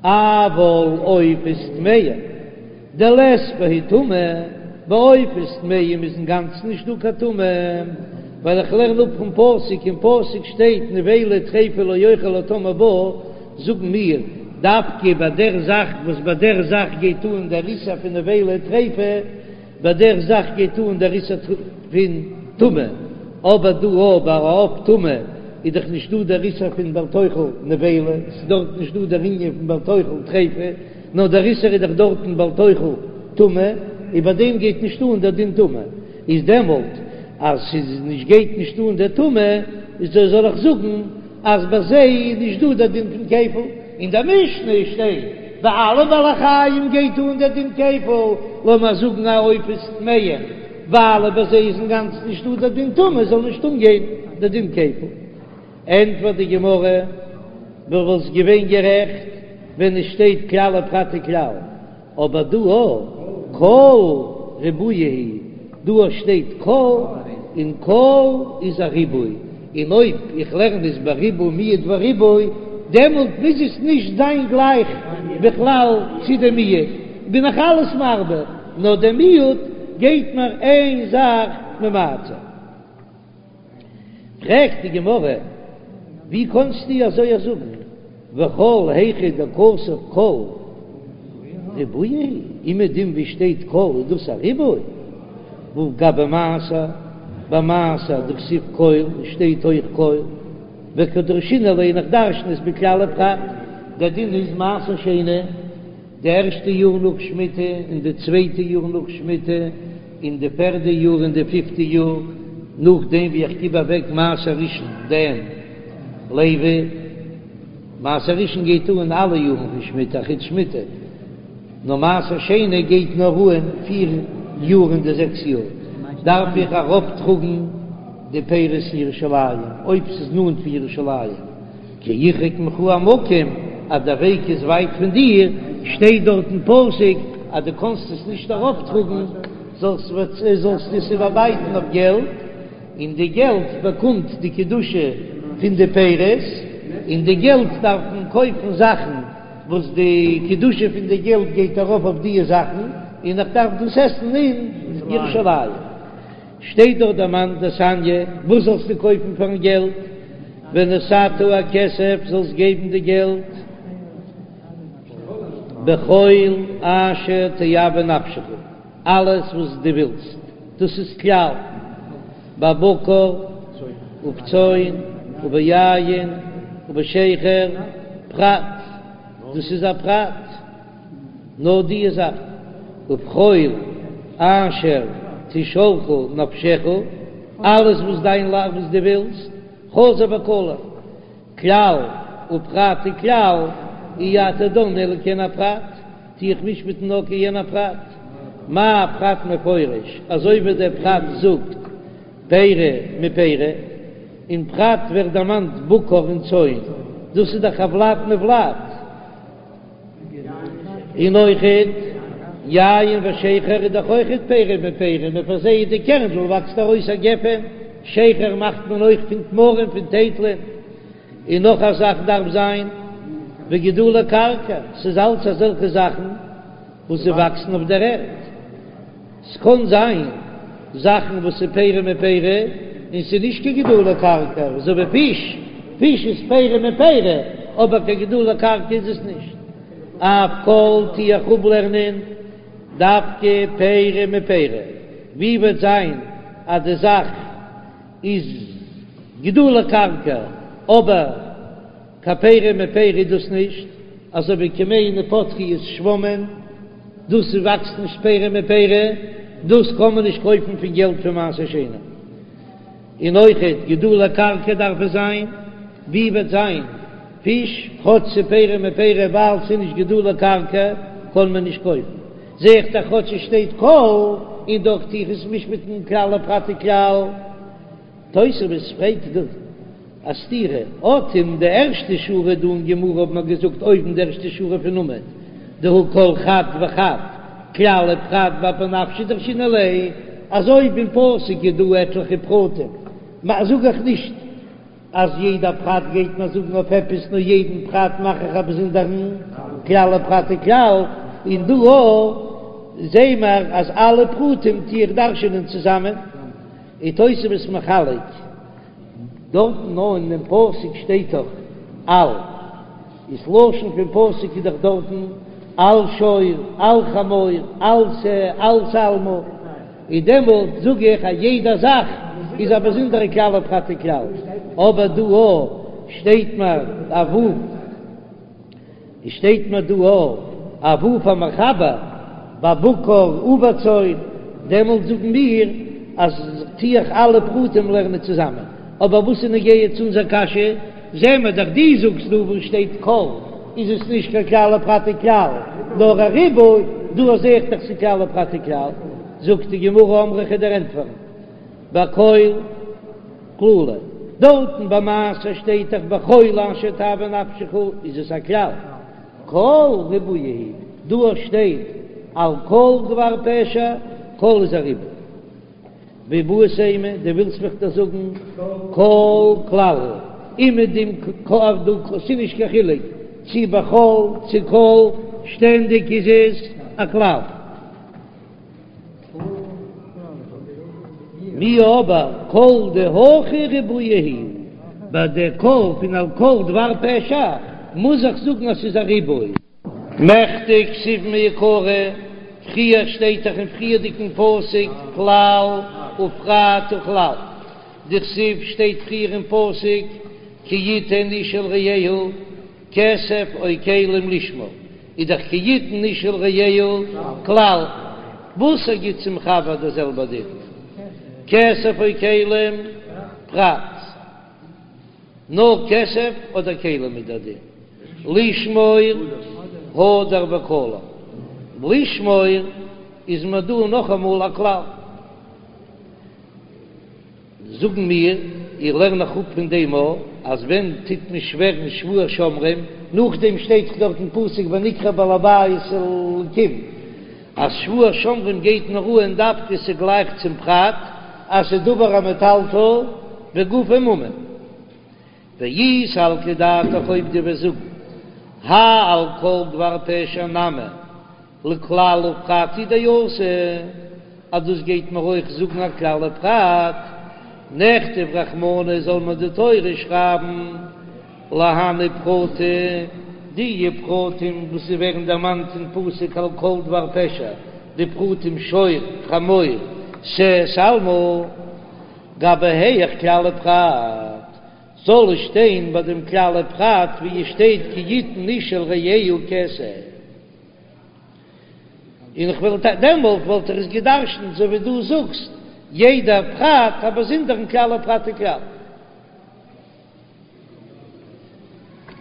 אבל עופות טמאים דלית בהו טומאה, ביי עופות טמאים איז אינגאנצן נישט דא קיין טומאה, ווייל איך לערן אפ פון פסוק, אין פסוק שטייט נבילה טריפה לא יאכל הטמא בה, זאגן מיר, דווקא ביי דער זאך וואס ביי דער זאך גייט אן דער איסור פון נבילה טריפה, ביי דער זאך גייט אן דער איסור פון טומאה, אבער דא אויב ביי א עוף טמא איז דאך נישט דא דער איסור פון בל תאכל נבילה, ס'איז דארט נישט דא דער ענין פון בל תאכל טריפה, נאר דער איסור איז דאך דארטן בל תאכל טומאה, און ביי דעם גייט נישט אן דער דין טומאה, איז דעמאלט אז ס'איז נישט גייט נישט אן דער טומאה, איז דאס זאל איך זאגן אז ביי זיי איז נישט דא דער דין פון כפל, אין דער משנה שטייט ביי אלע בעלי חיים גייט אן דער דין כפל, לאמיר זאגן אז עופות טמאים, ווייל ביי זיי איז אינגאנצן נישט דא דער דין טומאה זאל נישט אנגיין דער דין כפל. ענטפערט די גמרא, דו וואלסט געווען גערעכט ווען עס שטייט כלל ופרט וכלל, אבער דא א כל ריבויא הוא, דא שטייט כל און כל איז א ריבוי, און אויב איך לערן עס בריבוי מיעוט וריבוי, דעמאלט מוז עס נישט זיין גלייך בכלל צו די מיעוט, בין איך אלעס מרבה, נאר די מיעוט גייט מיר איין זאך ממעט זיין. פרעגט די גמרא, ווי קאנסטו אזוי זאגן, וכל היכא דכתב כל ריבויא הוא, אומעדום ווי שטייט כל איז דאס א ריבוי, והא גבי מעשר, ביי מעשר דכתיב כל שטייט אויך כל, וקא דרשינן ליה איך דרשן עס בכלל ופרט, דער דין איז מעשר שני. די ערשטע יאר נאך שמיטה און די צווייטע יאר נאך שמיטה און די פערדע יאר און די פיפטע יאר נאכדעם ווי איך גיב אוועק מעשר ראשון דעם לוי, מעשר ראשון גייט אן אלע יארן פון שמיטה אחוץ שמיטה. נאר מעשר שני גייט נאר אן פיר יאר אין די זעקס יאר דארף איך ארויפטראגן די פירות אין ירושלים אויב ס'איז נאנט פון ירושלים, כי ירחק ממך המקום אז דער וועג איז ווייט פון דיר, שטייט דארט אין פסוק אז דו קענסט עס נישט ארויפטראגן, זאלסטו עס איבערבייטן אויף געלט, און די געלט באקומט די קדושה פון די פירות, און די געלט דארף מען קויפן זאכן וואס די קדושה פון די געלט גייט ארויף אויף דיע זאכן, און איך דארף דאס עסן אין ירושלים. שטייט דארט דערמאנט דתניא, וואס זאלסטו קויפן פארן געלט? ונתת הכסף, זאלסט געבן די געלט בכל אשר תאוה נפשך, אלעס וואס דו ווילסט, דאס איז כלל, בבקר ובצאן וביין ובשכר, פרט, דאס איז א פרט. נאר דיע זאך, ובכל אשר תשאלך נפשך, אלעס וואס דיין לייב וואס דו ווילסט, חזר וכלל, כלל ופרט וכלל, אי אתה דן אלא כעין הפרט, טו איך משפט'ן נאר כעין הפרט, מה פרט מפורש, אזוי ווי דער פרט זאגט פרי מפרי, אין פרט ווערט דערמאנט בקר און צאן, דאס איז דאך א ולד מולד. און אויכעט יין ושכר איז דאך אויכעט פרי מפרי, מען פארזייט די קערנדל וואקסט ארויס א גפן, שכר מאכט מען אויך פון תמרים פון טייטלען, און נאך א זאך דארף זיין וגידולי קרקע, ס'איז אלץ אזעלכע זאכן וואס זיי וואקסן אויף דער ערד. ס'קען זיין זאכן וואס איז פרי מפרי און ס'איז נישט קיין גידולי קרקע, אזוי ווי פיש, פיש איז פרי מפרי אבער קיין גידולי קרקע איז עס נישט. אף כל טו איך אפלערנען דווקא פרי מפרי, ווי וועט זיין אז די זאך איז גידולי קרקע אבער קיין פרי מפרי איז דאס נישט, אזוי ווי כמהין ופטריות שוואמען, דאס וואקסט נישט פרי מפרי, דאס קען מען נישט קויפן פון געלט פון מעשר שני. און אויכעט גידולי קרקע דארף עס זיין, ווי וועט זיין פיש, כאטש ס'איז פרי מפרי ווייל ס'איז נישט גידולי קרקע קען מען נישט קויפן, זע איך דאך כאטש עס שטייט כל, און דאך טו איך עס משפט'ן כלל ופרט וכלל. תוספות פרעגט דא א סתירה, אט אין די ערשטע שורה דא אין גמרא האט מען געזאגט אויבן די ערשטע שורה פון עמוד דהא כל חד וחד כלל ופרט באפי נפשיה דרשינן ליה, אז אויב אין פסוק איז דא עטליכע פרטים זאג איך נישט אז יעדע פרט גייט מען זאגן אויף עפעס נאר יעדן פרט מאך איך א באזונדערן כלל ופרט וכלל, און דא אויך זעהן מיר אז אלע פרטים טו איך דרש'ענען צוזאמען. איז תוספות מחלק, דארטן נאר אין דעם פסוק שטייט דאך על, איז לשון פון פסוק איז דאך דארטן על שור, על חמור, על שה, על שלמה, און דעמאלט זאג איך אז יעדע זאך איז א באזונדערע כלל ופרט וכלל, אבער דא אויך שטייט מיר א ו'. עס שטייט מיר דא א ו' המחבר בבקר ובצאן, דעמאלט זאגן מיר אז טו איך אלע פרטים לערנען צוזאמען, אבער וואס איז נוגע צו אונזער קשיא, זעהן מיר דאך דו זאגסט דא וואו שטייט כל איז עס נישט קיין כלל ופרט וכלל נאר א ריבוי, דא זעה איך דאך ס'איז כלל ופרט וכלל, זאגט די גמרא אמרי כ'וועל דיר ענטפערן בכל כללא, דארטן ביי מעשר שטייט דאך בכל אשר תאוה נפשך איז עס א כלל, כל ריבויא הוא, דא שטייט על כל דבר פשע, כל איז א ריבוי. ואיבעית אימא, דו ווילסט מיך דאך זאגן כל כלל הוא, אומעדום דא ס'איז נישט קיין חילוק צו בכל צו כל, שטענדיג איז עס א כלל. מיהו אבער כל דהכא ריבויא הוא, ביי די כל פון על כל דבר פשע מוז איך זאגן אז ס'איז א ריבוי. מכדי כתיב מעיקרא, פריער שטייט דאך אין פריערדיגן פסוק כלל ופרט וכלל, דכתיב שטייט פריער אין פסוק כי יתן איש אל רעהו כסף או כלים לשמור, איז דאך כי יתן איש אל רעהו כלל, וואס ער גיט צום חבר דער זעלבער דין, כסף או כלים פרט, נאר כסף אדער כלים איז דער דין, לשמור הדר וכלל. לשמור איז מיר דא נאכאמאל א כלל. זאגן מיר, איך לערן נאך אפ פון דעם א, אז ווען טוט מען שווערן שבועת שומרים, נאכדעם שטייט דאך דארט אין פסוק ונקרב בעל הבית אל האלקים, אז שבועת שומרים גייט נאר אן דווקא ס'גלייך צום פרט אז ס'איז דבר המטלטל וגופו ממון. ואי סלקא דעתך אויב דו וועסט זאגן האי על כל דבר פשע נמי לכלל ופרט הוא דאתא, אז דאס גייט מיר אויך זאגן א כלל ופרט, נכתוב רחמנא זאל מיר די תורה שרייבן להני פרטי, די פרטים וואס ווערן דערמאנט אין פסוק על כל דבר פשע, די פרטים שור, חמור, שה, שלמה, גבי היאך כלל ופרט, זאל עס שטיין ביי דעם כלל ופרט ווי עס שטייט כי יתן איש אל רעהו כסף. און איך וואלט דעמאלט וואלט איך עס גע'דרש'נט אזוי ווי דו זאגסט, יעדע פרט א באזונדערן כלל ופרט וכלל.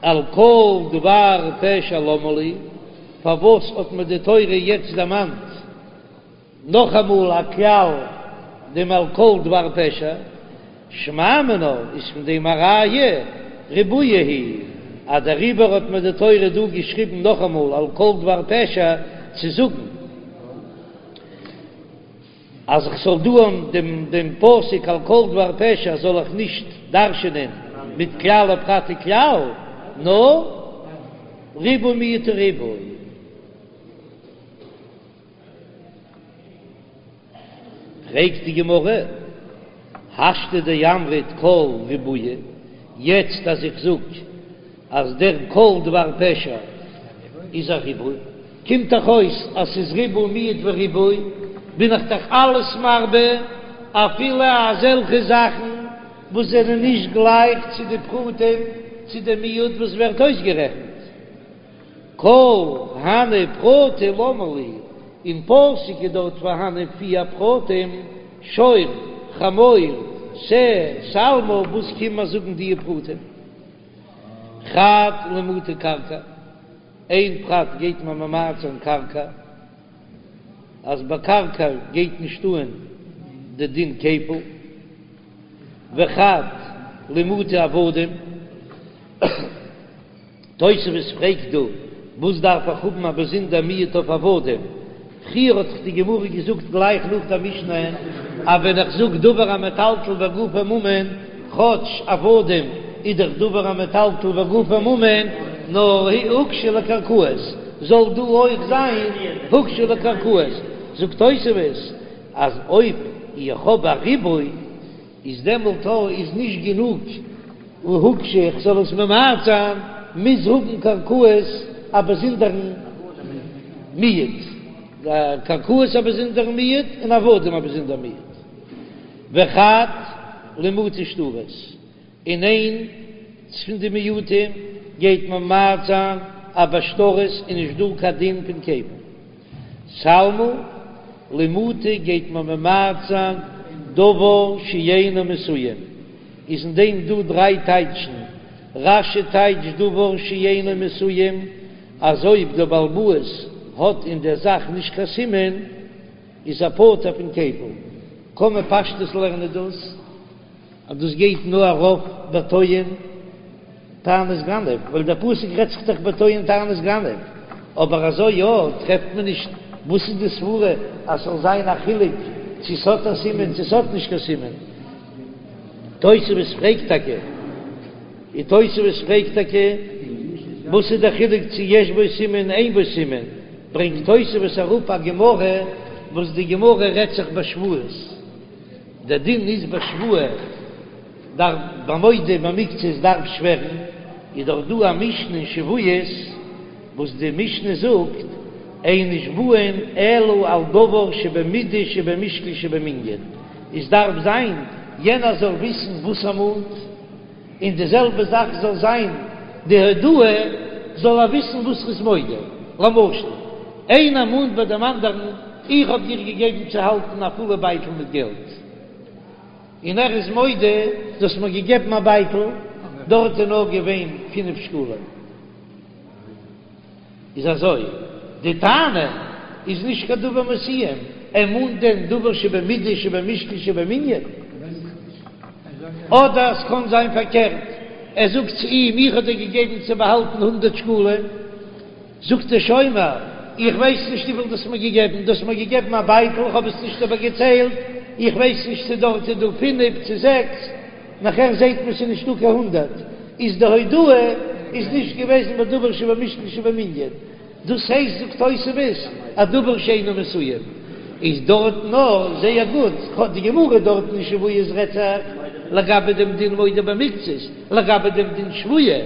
על כל דבר פשע למה לי, פארוואס האט מיר די תורה יעצט דערמאנט נאכאמאל א כלל דעם על כל דבר פשע, שמע מינה איז פון דעם א ראיה ריבויא הוא, אז דעריבער האט מיר די תורה דא געשריבן נאכאמאל על כל דבר פשע צו זאגן אז איך זאל דא דעם דעם פסוק על כל דבר פשע זאל איך נישט דרש'ענען מיט כלל ופרט וכלל נאר ריבוי מיעוט וריבוי. פרעגט די גמרא, השתא דאמרת כל ריבויא, יעצט אז איך זאג אז דער כל דבר פשע איז א ריבוי, קומט דאך אויס אז ס'איז ריבוי מיעוט וריבוי, בין איך דאך אלעס מרבה, אפילו אזעלכע זאכן וואס זענען נישט גלייך צו די פרטים, צו די מיעוט וואס ווערט אויסגערעכנט. כל הני פרטי למה לי, אין פסוק איז דארט פארהאנען פיר פרטים, שור, חמור, שה, שלמה, וואס קומט מיר זאגן די פרטים? חד למעוטי קרקע, איין פרט גייט מען ממעט זיין קרקע, אז ביי קרקע גייט נישט אן די דין כפל, וחד למעוטי עבדים. תוספות פרעגט דא, וואס דארף איך האבן א באזונדער מיעוט אויף עבדים? פריער האט דאך די גמרא געזאגט גלייך נאך דער משנה, אז ווען איך זאג דבר המטלטל וגופו ממון, כאטש עבדים איז דאך דבר המטלטל וגופו ממון, נאר הוקשו לקרקעות, זאל דא אויך זיין הוקשו לקרקעות. זאגט תוספות אז אויב איך האב א ריבוי, איז דעמאלט איז נישט גענוג הוקשו איך זאל עס ממעט זיין, מוז האבן קרקעות א באזונדערן מיעוט, קרקעות א באזונדערן מיעוט און עבדים א באזונדער מיעוט, וחד למעוטי שטרות, און איינס פון די מיעוטים גייט ממעט זיין אז ביי שטרות איז נישט דא קיין דין פון כפל. שלמה, למעוטי גייט מען ממעט זיין דבר שאינו מסוים, איז אין דעם דא דריי טייטשן, רש"י טייטשט דבר שאינו מסוים אז אויב דער בעל הבית האט אין דער זאך נישט קיין סימן איז ער פטור פון כפל, קען מען פשטות לערנען דאס אז דאס גייט נאר ארויף בטוען טענת גנב, ווייל דער פסוק רעדט זיך דאך בטוען טענת גנב, אבער אזוי יא טרעפט מען נישט, וואס איז די סברה אז ס'זאל זיין א חילוק צו ס'האט א סימן צו ס'האט נישט קיין סימן? תוספות פרעגט טאקע, און תוספות פרעגט טאקע וואס איז דער חילוק צו יש בו סימן אין בו סימן, ברענגט תוספות אראפ א גמרא וואס די גמרא רעדט זיך בשבועות. דער דין איז בשבועה דארף ביי מודה במקצת דארף שווערן, איז דאך דא א משנה אין שבועות וואס די משנה זאגט אין נשבעין אלא על דבר שבמידה שבמשקל שבמנין, עס דארף זיין יענער זאל וויסן וואס ער מאנט, און די זעלבע זאך זאל זיין די הודאה זאל ער וויסן וואס ר'איז מודה, למשל איינער מאנט ביי דעם אנדערן איך האב דיר געגעבן צו האלטן א פולע בייטל מיט געלט, און ער איז מודה דו האסט מיר געגעבן א בייטל דארט איז נאר געווען פינף שקלים. איז אזוי די טענה. איז נישט קיין דבר מסוים, ער מאנט דען דבר שבמידה שבמשקל שבמנין? אדער עס קען זיין פארקערט, ער זאגט צו אים איך האב דיר געגעבן צו באהאלטן הונדרעט שקלים, זאגט דער שומר, איך ווייס נישט וויפיל דו האסט מיר געגעבן, דו האסט מיר געגעבן א בייטל, איך האב עס נישט איבערגעציילט, איך ווייס נישט צו דארט איז דא פינף צו זעקס, נאכער זעט מען ס'איז נישטא קיין הונדרעט, איז די הודאה איז נישט געוועזן בדבר שבמשקל שבמנין. דאס הייסט זאגט תוספות א דבר שאינו מסוים איז דארט נאר זייער גוט, די גמרא דארט אין שבועות רעדט זיך לגבי דעם דין מודה במקצת, לגבי דעם דין שבועה,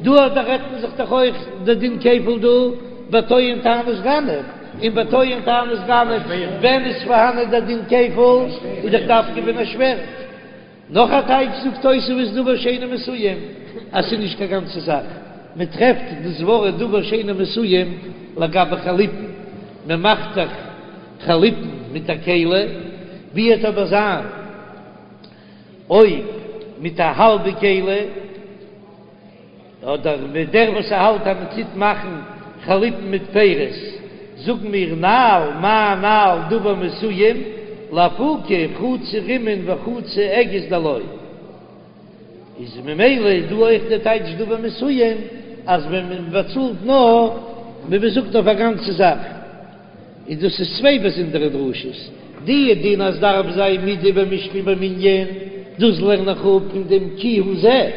דא דא רעדט מען זיך דאך אויך די דין כפל דא בטוען טענת גנב, און בטוען טענת גנב ווען איז פארהאנען דער דין כפל איז דאך דווקא ווען ער שווערט. נאך א טייטש זאגט תוספות דבר שאינו מסוים אז ס'איז נישט קיין גאנצע זאך, מען טרעפט דאס ווארט דבר שאינו מסוים לגבי חליפין, מען מאכט דאך חליפין מיט א כלי, ווי וועט אבער זיין אויב מיט א האלבע כלי? אדער מיט דער וואס ער האלט אז מען טוט מאכן חליפין מיט פירות, זאגן מיר נעל מה נעל דבר מסוים, לאפוקי חצי רימון וחצי אגוז דלא. איז ממילא איז דא אויך די טייטש דבר מסוים אז ווען מען באצאלט נאר ווי מען זאגט אויף א גאנצע זאך, איז דאס איז צוויי באזונדערע דרשות, די דין אז דארף זיין מידה במשקל במנין, דאס לערן איך אפ פון דעם כי הוא זה.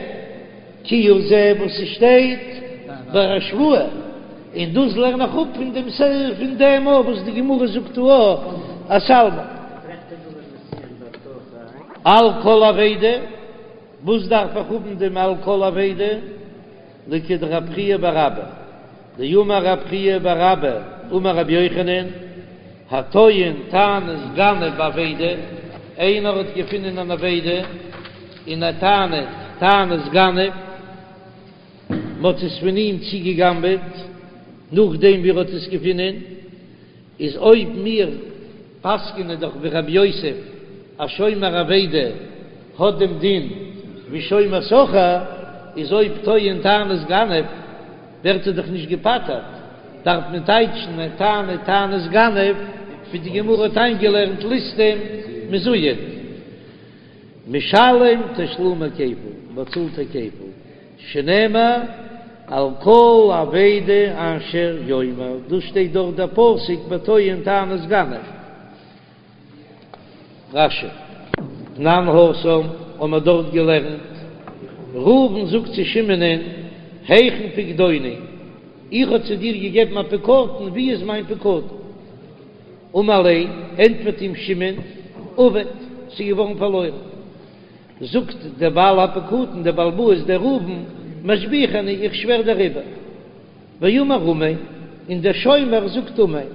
כי הוא זה וואס ס'שטייט ביי א שבועה, און דאס לערן איך אפ פון דעם פון דעם אויך וואס די גמרא זאגט דא א שלמה. על כל אבידה, וואס דארף איך האבן דעם על כל אבידה? לכדרב חייא בר אבא, דאמר רב חייא בר אבא אמר רבי יוחנן, הטוען טענת גנב באבידה, איינער האט געפונען אן אבידה און ער טענה'ט טענת גנב, מ'האט עס פון אים צוגעגנבעט נאכדעם ווי ער האט עס געפונען, איז אויב מיר פסק'נען דאך ווי רב יוסף אז שומר אבידה האט דעם דין ווי שומר שכר, איז אויב טוען טענת גנב ווערט ער דאך נישט געפטר'ט, דארף מען טייטשן ער טענה'ט טענת גנב ווי די גמרא האט איינגעלערנט ליסטים מזוין משלם תשלומי כפל, באצאלט ער כפל, שנאמר על כל אבידה אשר יאמר, דאס שטייט דארט דער פסוק בטוען טענת גנב. רש"י, תנן התם, האבן מיר דארט געלערנט, ראובן זאגט צו שמעונ'ען, היכן פקדוני, איך האב צו דיר געגעבן א פקדון, ווי איז מיין פקדון? אמר ליה, ענטפערט אים שמעון, אבד, ס'איז געווארן פארלוירן. זאגט דער בעל הפקדון, דער בעל הבית, דער ראובן, משביעך אני, איך שווער דעריבער. ואמר אמן, און דער שומר זאגט אמן,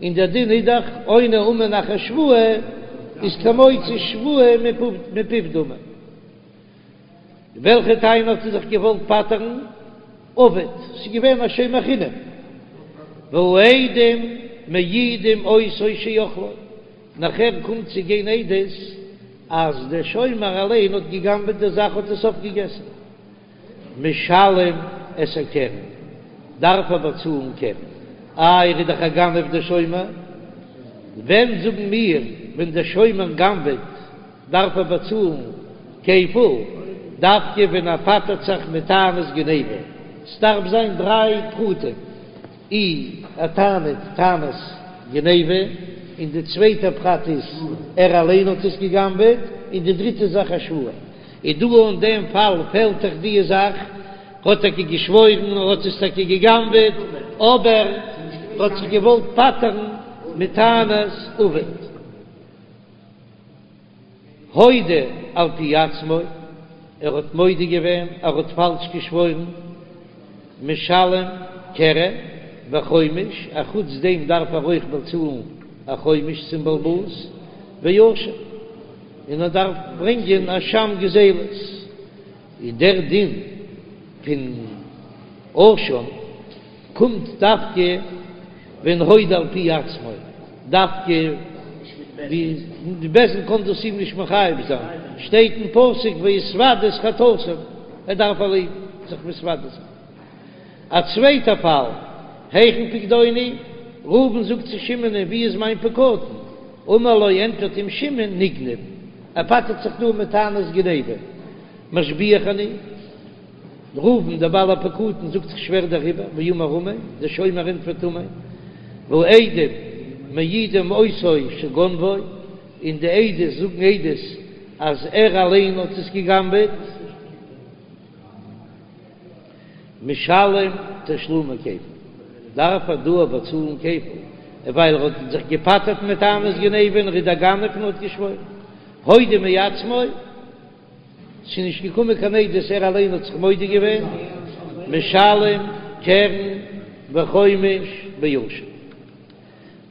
און דער דין איז דאך עונה אמן אחר שבועה איז כמוציא שבועה מפיו דמי. וועלכע טענה האט ער זיך געוואלט פטר'ן? אבד, ס'איז געווען א שומר חינם. והעדים מעידים אותו שאכלו, נאכער קומט צו גיין עדות אז דער שומר אליין האט גע'גנב'עט די זאך האט עס אויפגעגעסן. משלם את הקרן, דארף ער באצאלן קרן, איי ער איז דאך א גנב דער שומר, ווען זאגן מיר ווען דער שומר גנב'עט דארף ער באצאלן כפל, דווקא ווען ער פטר'ט זיך מיט טענת גניבה, ס'דארף זיין דריי פרטים. אי ער טענה'ט טענת גניבה, און די צווייטע פרט איז ער אליין האט עס גע'גנב'עט, און די דריטע זאך א שבועה. איז דא אין דעם פאל פעלט דאך די זאך, ער האט טאקע געשוואוירן ער האט עס טאקע גע'גנב'עט, אבער ער האט זיך געוואלט פטר'ן מיט טענת אבד. הודה על פי עצמו, ער האט מודה געווען, ער האט פאלש געשוואוירן, משלם קרן וחומש, א חוץ דעם דארף ער אויך באצאלן א חומש צום בעל הבית, ואשם, און ער דארף ברענגען אשם גזילות, איז דער דין פון אשם קומט דווקא ווען הודה על פי עצמו, דווקא די בית דין קען דאס אים נישט מחייב זיין, שטייט אין פסוק והתודו את חטאתם, ער דארף אליין זיך מתוודה זיין. א צווייטע פאל, היכן פקדוני? ראובן זאגט צו שמעונ'ען ווי איז מיין פקדון? אמר לו ענטפערט אים שמעון נגנב, ער פטר'ט זיך דא מיט טענת גניבה, משביעך אני. ראובן דער בעל הפקדון זאגט איך שווער דעריבער, ואמר אמן, דער שומר ענטפערט אמן, והעדים מעידים אותו שגנבו, און די עדות זאגן עדות אז ער אליין האט עס גע'גנב'עט. משלם תשלומי כפל, דארף ער דא באצאלן כפל, ווייל ער האט זיך געפטר'ט מיט טענת גניבה און ער איז דער גנב און האט געשוואוירן. הודה מעצמו, ס'איז נישט געקומען קיין עדות ער אליין האט זיך מודה געווען, משלם קרן וחומש באשם.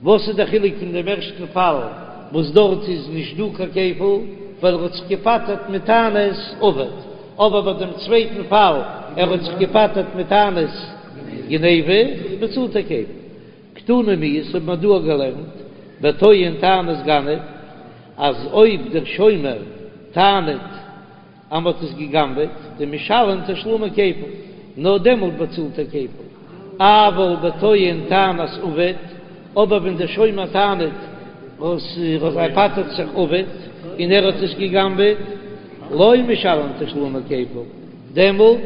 וואס איז דער חילוק פון דעם ערשטן פאל וואס דארט איז נישט דא קיין כפל ווייל ער האט זיך געפטר'ט מיט טענת אבד, אבער ביי דעם צווייטן פאל ער האט זיך געפטר'ט מיט טענת גניבה באצאלט ער כפל. קתני מיהת האט מען דא געלערנט בטוען טענת גנב אז אויב דער שומר טענה'ט אז מ'האט עס גע'גנב'עט, דמשלם תשלומי כפל, נאר דעמאלט באצאלט ער כפל, אבל בטוען טענת אבד, אבער ווען דער שומר טענה'ט וואס ער פטר'ט זיך אבד און ער האט עס גע'גנב'עט, לא משלם תשלומי כפל, דעמאלט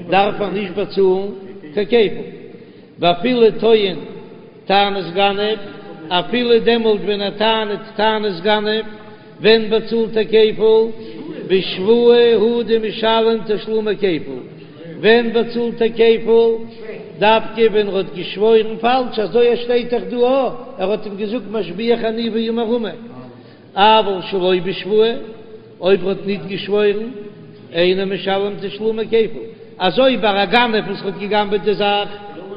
דארף ער נישט באצאלן קיין כפל, ואפילו טוען טענת גנב, אפילו דעמאלט ווען ער טענה'ט טענת גנב, ווען באצאלט ער כפל? בשבועה הוא דמשלם תשלומי כפל. ווען באצאלט ער כפל? דווקא ווען ער האט געשוואוירן פאלש, אזוי עס שטייט דאך דא א, ער האט אים געזאגט משביעך אני ואמר אמן. אבל שלא בשבועה, אויב ער האט ניט געשוואוירן, אינו משלם תשלומי כפל. אזוי ביי א גנב וואס האט געגנבעט די זאך,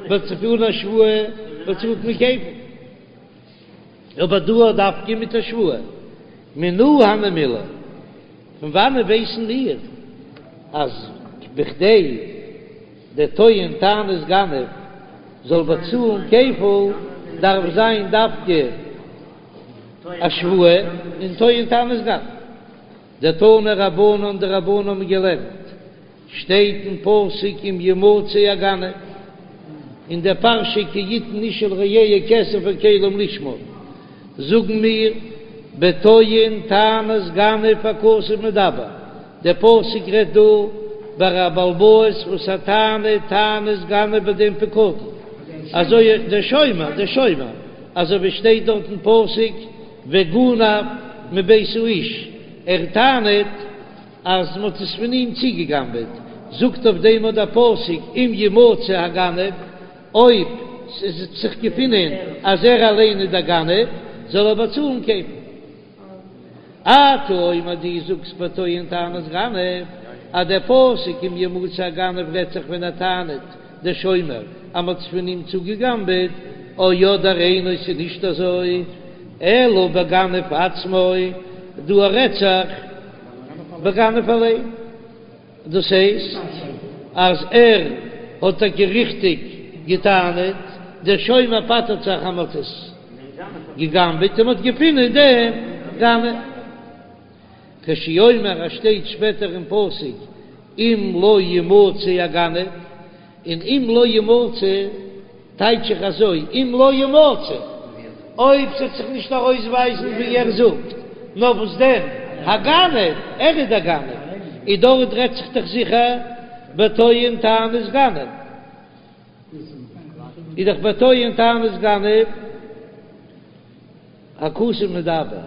באצאלט אן א שבועה, באצאלט מען כפל. אבער דא דווקא מיט א שבועה. מנא הני מילי, פון וואנען ווייסן מיר אז בכדי דער טוען טענת גנב זאל באצאלן כפל דארף זיין דווקא א שבועה און טוען טענת גנב? דתנו רבנן די רבנן האבן געלערנט שטייט אין פסוק אם ימצא הגנב, אין דער פרשה כי יתן איש אל רעהו כסף או כלים לשמור, זאגן מיר בטוען טענת גנב הכתוב מדבר, דער פסוק רעדט דא ביי א בעל הבית וואס ער טענה'ט טענת גנב ביי דעם פקדון, אזוי דער שומר, דער שומר, אזוי ווי שטייט דארט אין פסוק וגנב מבית האיש, ער טענה'ט. אז מ'האט עס פון אים צוגעגנבעט, זאגט אויף דעם אט דער פסוק אם ימצא הגנב, אויב ס'וועט זיך געפינען אז ער אליין איז דער גנב, זאל ער באצאלן כפל. אתה אומר דו זאגסט בטוען טענת גנב, אז דער פסוק אם ימצא הגנב רעדט זיך ווען ער טענה'ט, דער שומר, אז מ'האט עס פון אים צוגעגנבעט, או אדער אינו ס'איז נישט אזוי, אלא בגנב עצמו, דא רעדט זיך בגנב אליין, דאס הייסט אז ער האט טאקע ריכטיג געטענה'ט, דער שומר פטר'ט זיך אז מ'האט עס געגנבעט און מ'האט געפונען דעם גנב. כשהוא אומר אז שטייט שפעטער אין פסוק אם לא ימצא הגנב, און אם לא ימצא טייטש איך אזוי, אם לא ימצא, אויב ס'וועט זיך נישט ארויסווייזן ווי ער זאגט, נאר וואס דען, הגנב, ער איז דער גנב, און דארט רעדט זיך דאך זיכער בטוען טענת גנב, איז דאך בטוען טענת גנב. הכתוב מדבר,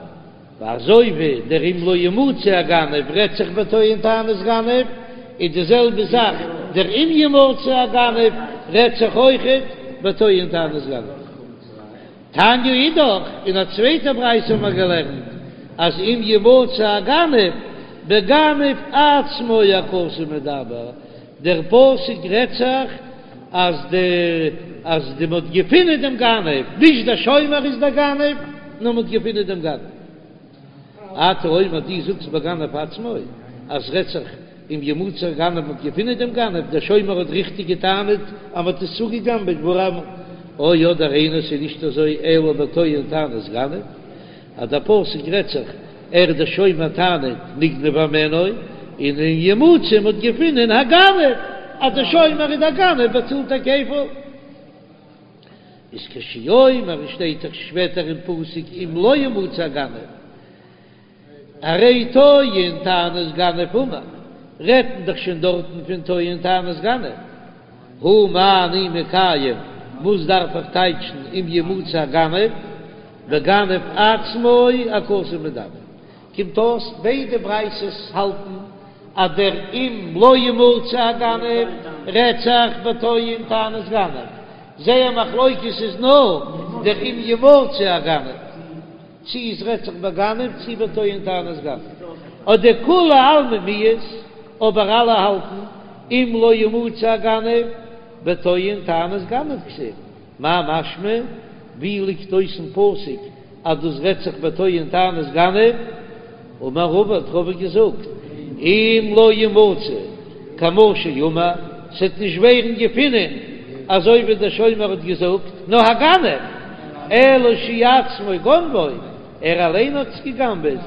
ואזוי ווי דער אם לא ימצא הגנב רעדט זיך בטוען טענת גנב, איז די זעלבע זאך דער אם ימצא הגנב רעדט זיך אויכעט בטוען טענת גנב. תניא אידך, אין א צווייטע ברייתא האבן מיר געלערנט אז אם ימצא הגנב בגנב עצמו הכתוב מדבר, דער פסוק רעדט זיך אז די אז די מ'האט געפינען דעם גנב, נישט דער שומר איז דער גנב, נאר מ'האט געפינען דעם גנב. אתה אומר דו זאגסט בגנב עצמו אז רעדט זיך אם ימצא הגנב מ'האט געפינען דעם גנב, דער שומר האט ריכטיג געטענה'ט אז מ'האט עס צוגעגנבעט ווארום או אדער אינו ס'איז נישט אזוי אלא בטוען טענת גנב. אז דער פסוק רעדט זיך ער דער שומר טענה'ט נגנב הימנו, און אם ימצא מ'האט געפונען הגנב אז דער שומר איז דער גנב באצאלט ער כפל. איז כשהוא אומר שטייט דאך שפעטער אין פסוק אם לא ימצא הגנב הרי טוען טענת גנב אמור, רעדט מען דאך שוין דארטן פון טוען טענת גנב, הא מה אני מקיים, וואס דארף איך טייטשן אם ימצא הגנב, בגנב עצמו הכתוב מדבר. קומט אויס ביידע ברייתות האלטן אז דער אם לא ימצא הגנב רעדט זיך בטוען טענת גנב, זייער מחלוקת איז נאר דער אם ימצא הגנב, צי עס רעדט זיך בגנב צי בטוען טענת גנב, אדער כולי עלמא מיהת, אבער אלע האלטן אם לא ימצא הגנב בטוען טענת גנב כתיב. מאי משמע? ווי ליגט אויס אין פסוק אז דאס רעדט זיך בטוען טענת גנב? אמר רבא האט רבא געזאגט, אם לא ימצא כמו שאמר, ס'עט נישט ווערן געפינען אזוי ווי דער שומר האט געזאגט, נאר הגנב, אלא שהוא עצמו גנבו, ער אליין האט עס גע'גנב'עט,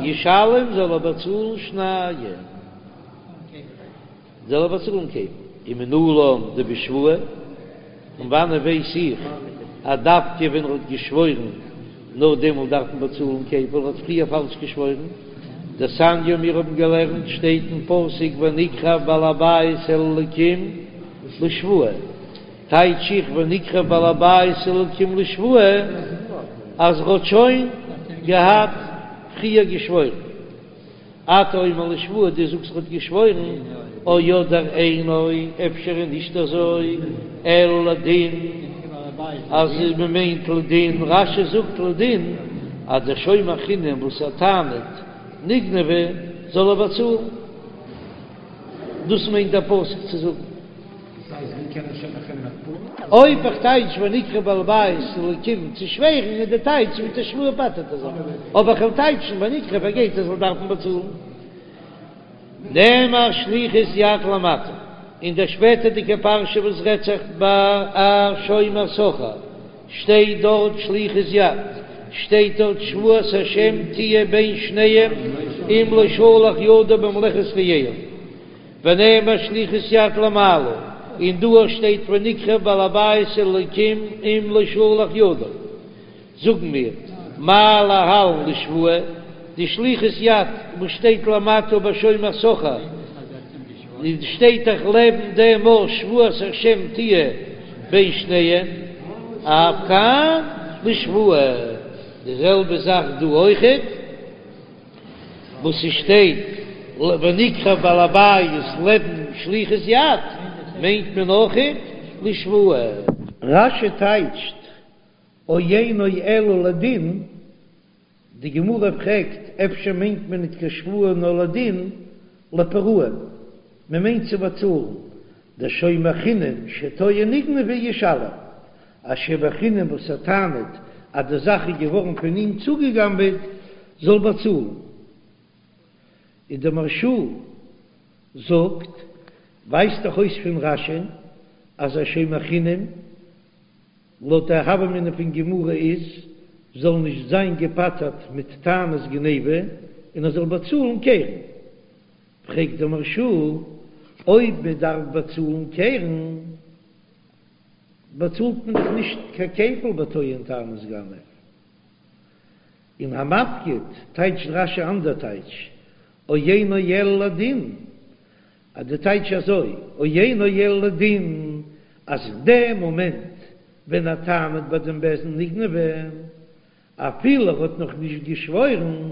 ישלם זאל ער באצאלן שנים. זאל ער באצאלן כפל, ומנלן דבשבועה, פון וואנען ווייס איך אז דווקא ווען ער האט געשוואוירן נאר דעמאלט דארף מען באצאלן כפל, ער האט פריער פאלש געשוואוירן? דתניא מיר האבן געלערנט שטייט אין פסוק ונקרב בעל הבית אל האלקים לשבועה, טייטש איך ונקרב בעל הבית אל האלקים לשבועה אז ער האט שוין געהאט פריער געשוואוירן. אתה אומר לשבועה, דו זאגסט ער האט געשוואוירן, או אדער אינו, אפשר איז נישט אזוי, אלא לדין, אז מען מיינט לדין, רש"י זאגט לדין, אז דער שומר חינם וואס ער טענה'ט נגנבה זאל ער באצאלן, דאס מיינט דער פסוק צו זאגן. אויב איך טייטש ונקרב בעל הבית אל האלקים צו שווערן איז די טייטש מיט די שבועה פטר'ט ער זיך, אבער איך וועל טייטשן ונקרב ער גייט ער זאל דארפן באצאלן. נאמר שליחות יד למטה, אין דער שפעטערדיגע פרשה וואס רעדט זיך ביי א שומר שכר שטייט דארט שליחות יד, שטייט דארט שבועת השם תהיה בין שניהם אם לא שלח ידו במלאכת רעהו. ונאמר שליחות יד למעלה, און דא שטייט ונקרב בעל הבית אל האלקים אם לא שלח ידו. זאגן מיר, מה להלן לשבועה, די שליחות יד וואס שטייט למטה ביי שומר שכר, שטייט דאך לעבן דעם אויך שבועת השם תהיה בין שניהם, אף כאן לשבועה, די זעלבע זאך דא אויכעט. וואס ס'שטייט ונקרב בעל הבית לעבן שליחות יד מיינט מען אויכעט לשבועה. רש"י טייטשט או אינו אלא לדין, די גמרא פרעגט אפשר מיינט מען ניט קיין שבועה נאר לדין, לפרעון, מען מיינט צו באצאלן, דשומר חינם שטוען נגנבה ישלם, א שומר חינם וואס ער טענה'ט אז די זאך איז געווארן פון אים צוגעגנבעט זאל באצאלן. און דער מהרש"א זאגט, ווייזט דאך אויס פון רש"י אז א שומר חינם לויט די הוה אמינא פון גמרא איז זאל נישט זיין געפטר'ט מיט טענת גניבה און ער זאל באצאלן קרן. פרעגט דער מהרש"א, אויב מען דארף באצאלן קרן, באצאלט מען דאך נישט קיין כפל בטוען טענת גנב. אין המפקיד טייטשט רש"י אנדער טייטש, או אינו אלא לדין, אז די טייטש אזוי, או אינו אלא לדין, אז אין דעם מאמענט ווען ער טענה'ט ביי דעם בית דין נגנבה, אפילו ער האט נאך נישט געשוואוירן,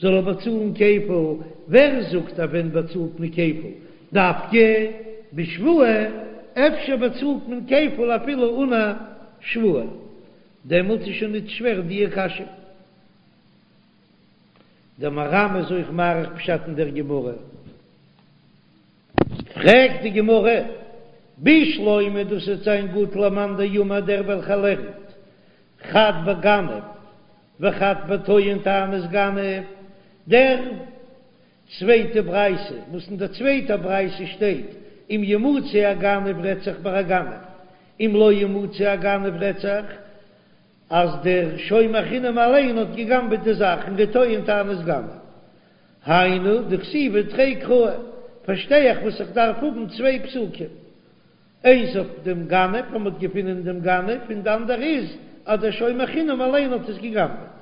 זאל ער באצאלן כפל, ווער זאגט אז ווען באצאלט מען כפל דווקא בשבועה, אפשר באצאלט מען כפל אפילו אן א שבועה, דעמאלט איז שוין ניט שווער דיע קשיא. דער מהר"ם איז אויך מאריך פשט אין דער גמרא. פרעגט די גמרא, בשלמא דאס וועט זיין גוט למאן דאמר דער וועלכער לערנט חד בגנב וחד בטוען טענת גנב, דער צווייטע ברייתא, וואס אין דער צווייטער ברייתא שטייט אם ימצא הגנב רעדט זיך ביי א גנב, אם לא ימצא הגנב רעדט זיך אז דער שומר חינם אליין האט געגנבעט די זאך און ער טוען טענת גנב. היינו דכתיבי תרי קראי, פארשטיי איך וואס איך דארף האבן צוויי פסוקים. איינס אויף דעם גנב אז מ'האט געפונען דעם גנב, און די אנדערע איז אז דער שומר חינם אליין האט עס גע'גנב'עט.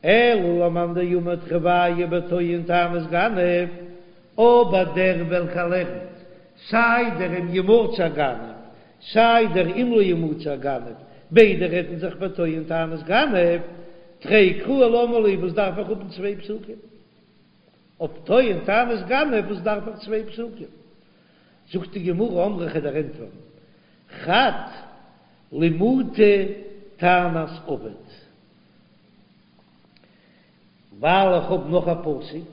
אלא למאן דאמר תרוייהו בטוען טענת גנב, אבער דער וועלכער לערנט סיי דער אם ימצא הגנב סיי דער אם לא ימצא הגנב, ביידע רעדן זיך בטוען טענת גנב, תרי קראי למה לי, וואס דארף איך האבן צוויי פסוקים? אויף טוען טענת גנב וואס דארף איך צוויי פסוקים? זאגט די גמרא אמרי כ'וועל דיר ענטפערן חד למעוטי טענת אבד, ווייל איך האב נאך א פסוק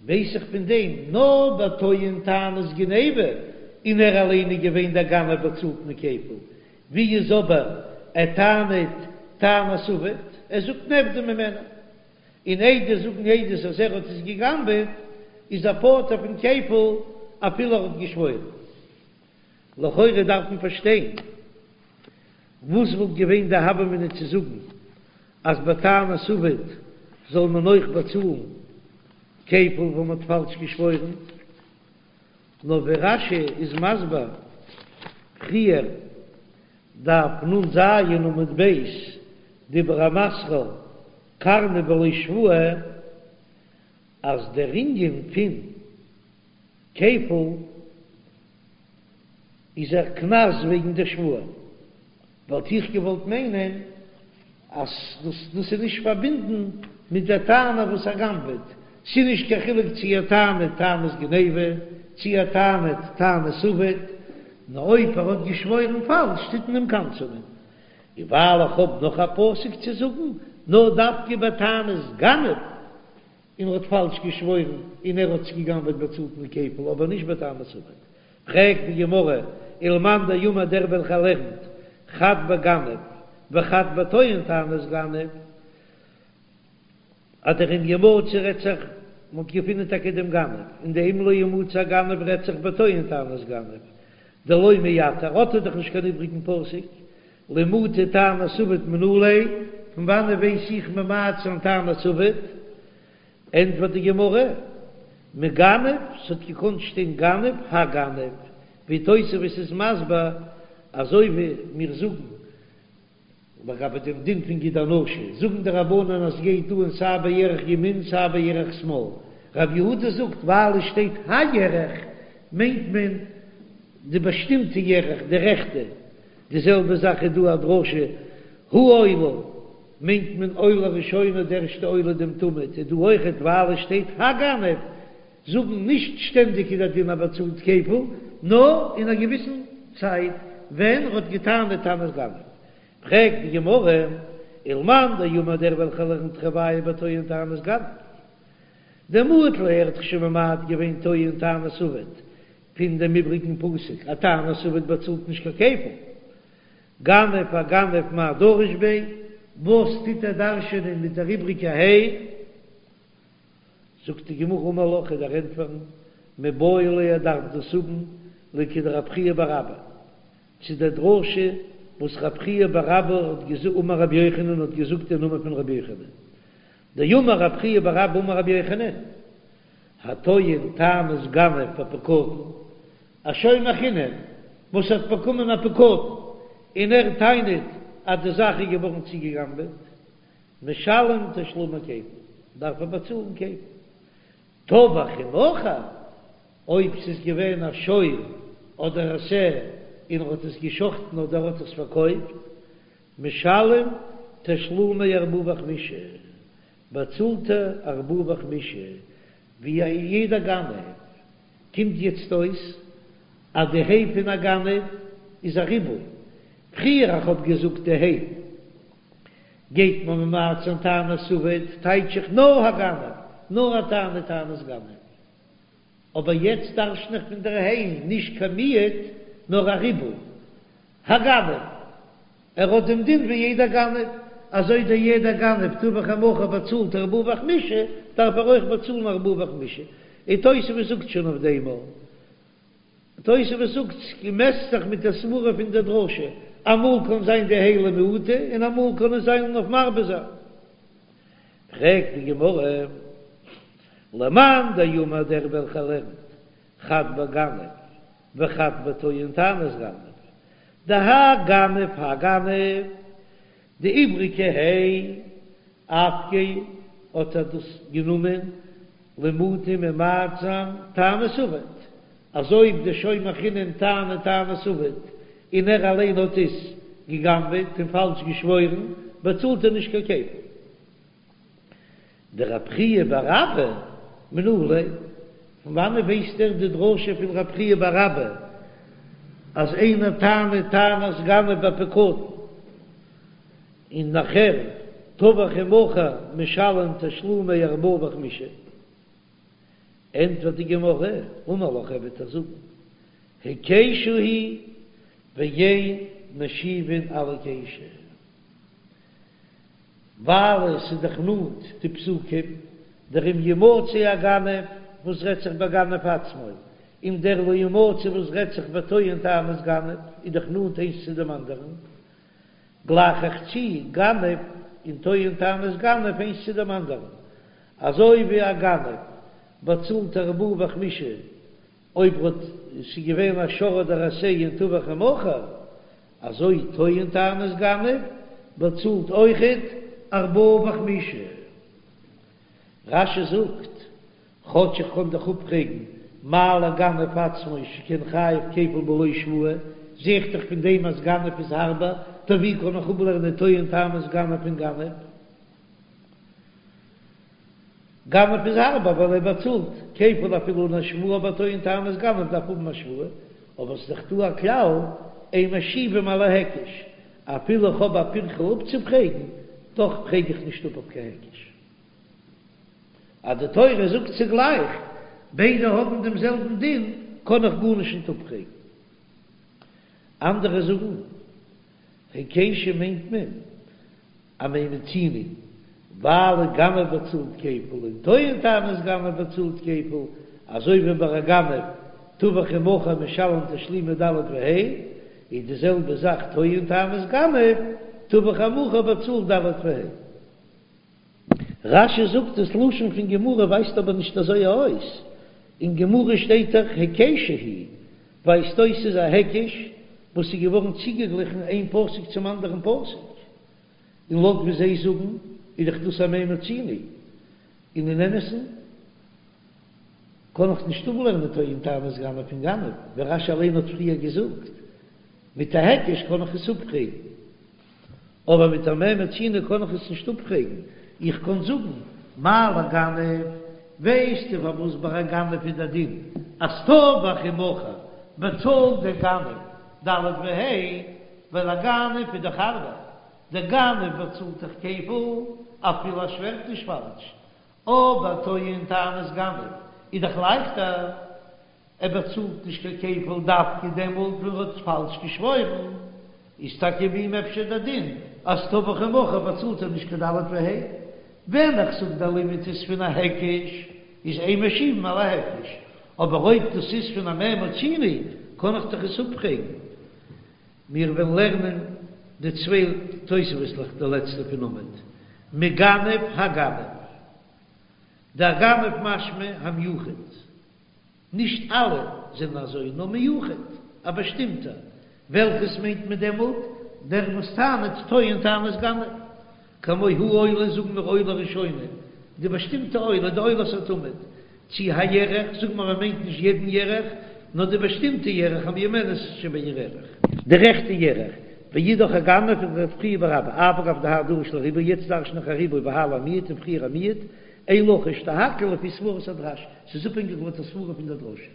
ווייס איך פון דעם נאר ביי טוען טענת גניבה און ער אליין איז געווען דער גנב באצאלט מען כפל, ווי איז אבער ער טענה'ט טענת אבד, ער זאגט נאבדה ממני. און עדות זאגן עדות אז ער האט עס געגנבעט, איז ער פטור פון כפל אפילו ער האט געשוואוירן. לכאורה דארף מען פארשטיין, וואס וואלט געווען די הוה אמינא צו זאגן אז ביי טענת אבד זאל מען אויך באצאלן כפל ווען מען האט פאלש געשוואוירן? נאר ווי רש"י איז מסביר פריער, דף נ"ז עמוד ב', דיבור המתחיל קרנא בלא שבועה, אז דער ענין פון כפל איז א קנס וועגן דער שבועה, וואלט איך געוואלט מיינען אז דאס דאס איז נישט פארבינדן מיט דער טענה וואס ער גנב'עט, ס'איז נישט קיין חילוק צי ער טענה'ט טענת גניבה צי ער טענה'ט טענת אבד, נאר אויב ער האט געשוואוירן פאלש טוט מען אים קנס'ענען. און ווייל איך האב נאך א פסוק צו זאגן, נאר דווקא ביי טענת גנב, און ער האט פאלש געשוואוירן און ער האט עס געגנב'עט באצאלט מען כפל, אבער נישט ביי טענת אבד. פרעגט די גמרא, ולמאן דאמר דער וועלכער לערנט חד בגנב וחד בטוען טענת גנב, אז דער אם ימצא רעדט זיך, מ'האט געפונען טאקע דעם גנב, און די אם לא ימצא הגנב רעדט זיך בטוען טענת גנב, דלא מייתר, האט ער דאך נישט קיין איבריגן פסוק, למעוטי טענת אבד מנא ליה, פון וואנען ווייס איך ממעט זיין טענת אבד? ענטפערט די גמרא, מגנב, ס'האט געקאנט שטיין גנב, הגנב, ווי תוספות איז מסביר, אזוי ווי מיר זאגן לגבי דעם דין פון גיד הנשה, זאגן די רבנן אז ס'גייט אן סיי בירך ימין סיי בירך שמאל, רב יהודה זאגט ווייל עס שטייט הירך מיינט מען די באשטימטע ירך, די רעכטע, די זעלבע זאך איז דא א דרשה העולה מיינט מען עולה ראשונה די ערשטע עולה דעם תמיד איז דא אויכעט ווייל עס שטייט הגנב זאגן נישט שטענדיג איז דער דין אז באצאלט כפל נאר אין א געוויסן צייט ווען ער האט געטענה'ט טענת גנב. פרעגט די גמרא, ולמאן דאמר דער וועלכער לערנט תרוייהו בטוען טענת גנב דמעט ליה ער האט דאך שוין ממעט געווען טוען טענת אבד פון דעם איבריגן פסוק אז טענת אבד באצאלט נישט קיין כפל. גנב הגנב מאי דריש ביה, וואס טוט ער דרש'ענען מיט דער איבריגע ה'? זאגט די גמרא אמר לך כ'וועל דיר ענטפערן, מיבעי ליה ער דארף דאס האבן לכדרב חייא בר אבא, צו דער דרשה וואס רב חייא בר אבא האט געזאגט אמר רבי יוחנן האט געזאגט אין נאמען פון רבי יוחנן, דאמר רב חייא בר אבא אמר רבי יוחנן, הטוען טענת גנב בפקדון, א שומר חינם וואס האט באקומען א פקדון און ער טענה'ט אז די זאך איז געווארן צוגעגנבעט, משלם תשלומי כפל, דארף ער באצאלן כפל. טבח ומכר, אויב ס'איז געווען א שור אדער א שה און ער האט עס געשחטן אדער ער האט עס פארקויפט, משלם תשלומי ארבעה וחמישה, באצאלט ער ארבעה וחמישה ווי יעדע גנב. קומט יעצט אויס אז די ה' פון א גנב איז א ריבוי. פריער איך האב געזאגט די ה' גייט מען ממעט זיין טענת אבד, טייטש איך נאר הגנב, נאר ער טענה'ט טענת גנב. אבער יעצט דרש'ן איך פון דער ה' נישט קיין מיעוט נאר א ריבוי. הגנב, ער האט דעם דין ווי יעדער גנב, אזוי דער יעדער גנב טבח ומכר באצאלט ארבעה וחמישה, דארף ער אויך באצאלן ארבעה וחמישה. און תוספות זאגט שוין אויף דעם אויך. תוספות זאגט ס'מעסט זיך מיט די סברה פון די דרשה, אמאל קען זיין די ה' למעוטי און אמאל קען עס זיין אויף מרבה זיין. פרעגט די גמרא, למאן דאמר דער וועלכער לערנט חד בגנב. וחד בטוען טענת גנב, דהאי גנב האי גנב, די איבריגע ה' אפקיה האט ער דאס גענומען למעוטי ממעט זיין טענת אבד, אז אויב די שומר חינם טענה'ט טענת אבד און ער אליין האט עס גע'גנב'עט און פאלש געשוואוירן, באצאלט ער נישט קיין כפל. דרב חייא בר אבא מנא ליה, פון וואנעט ווייסט ער די דרשה פון רב חייא בר אבא אז איינער טענה'ט טענת גנב בפקדון און נאכער טבח ומכר משלם תשלומי ארבעה וחמישה? ענטפערט די גמרא, אמר לך ער וועט דיר זאגן, היקשה היא ואין משיבין על היקשה. ווייל עס איז דאך נאנט די פסוקים, דער אם ימצא הגנב וואס רעדט זיך בגנב עצמו, און דער לא ימצא וואס רעדט זיך בטוען טענת גנב, איז דאך נאנט איינס צו דעם אנדערן, גלייך איך צו גנב און טוען טענת גנב איינס צו דעם אנדערן, אזוי ווי א גנב באצאלט ארבעה וחמישה אויב האט ס'איז געווען א שור אדער א שה און טבח ומכר, אזוי טוען טענת גנב באצאלט אויכעט ארבעה וחמישה. רש"י זאגט, כאטש איך קען דאך אפפרעגן מה לגנב עצמו שכן חייב כפל בלא שבועה, זע איך דאך פון דעם אז גנב איז הארבער, טא ווי קען איך אפלערנען טוען טענת גנב פון גנב? גנב איז הארבער ווייל ער באצאלט כפל אפילו אן א שבועה אבער טוען טענת גנב דארף האבן א שבועה, אבער ס'איז דאך דא א כלל אין משיבים על ההיקש, אפילו איך האב א פירכא אפצופרעגן, דאך פרעג איך נישט אפ אויף קיין היקש. אז די תורה זאגט צוגלייך ביידע האבן דעם זעלבן דין קען איך גארנישט נישט אפפרעגן. אנדערע זאגן היקשה מיינט מען א מה מצינו, ווייל א גנב באצאלט כפל און טוען טענת גנב באצאלט כפל, אזוי ווי ביי א גנב טבח ומכר משלם תשלומי ד' וה', איז די זעלבע זאך טוען טענת גנב טבח ומכר באצאלט ד' וה'. רש"י זאגט דאס לשון פון גמרא ווייזט אבער נישט אזוי אויס, אין גמרא שטייט דאך היקשה היא, ווייזט אויס ס'איז א היקש וואס איז געווארן צוגעגליכן איין פסוק צום אנדערן פסוק, און לויט ווי זיי זאגן איז דאך דאס א מה מצינו, און אין אמת'ן קען איך נישט אפלערנען טוען טענת גנב פון גנב, ווי רש"י אליין האט פריער געזאגט, מיט א היקש קען איך עס אפפרעגן. אבער מיט א מה מצינו קען איך עס נישט אפפרעגן, איך קען זאגן מה לגנב, ווייסטו פארוואס ביי א גנב איז דער דין אז טבח ומכר באצאלט דער גנב ד' וה', ווייל א גנב איז דאך הארבער, דער גנב באצאלט דאך כפל אפילו ער שווערט נישט פאלש, אבער טוען טענת גנב איז דאך לייכטער. ער באצאלט נישט קיין כפל דווקא דעמאלט ווען ער האט פאלש געשוואוירן, איז טאקע ביי אים אפשר דער דין אז טבח ומכר באצאלט ער נישט קיין ד' וה'. ווען איך זאג דער לימוד איז פון א היקש איז אין משיבין על ההיקש, אבער אויב דאס איז פון א מה מצינו קען איך דאך עס אפפרעגן. מיר וועלן לערנען די צוויי תוספות'לעך די לעצטע פון עמוד מגנב הגנב, דהגנב משמע המיוחד. נישט אלע זענען אזוי, נאר מיוחד, א באשטימטער. וועלכעס מיינט מען דעמאלט? דער וואס טענה'ט טוען טענת גנב. כמו העולה זאגן מיר עולה ראשונה, די באשטימטע עולה, די עולת התמיד. צי הירך, זאגן מיר מען מיינט נישט יעדן ירך, נאר די באשטימטע ירך המיומנת שבירך. די רעכטע ירך. ואידך הגנב וכדרב חייא בר אבא, אף על גב דהאי דריש לריבוי, יעצט דרש'ן איך א ריבוי והאי למיעוט און פריער א מיעוט, אין לחש דהכל לפי סברת הדרש, ס'איז אפהענגיק לויט די סברה פון דער דרשה.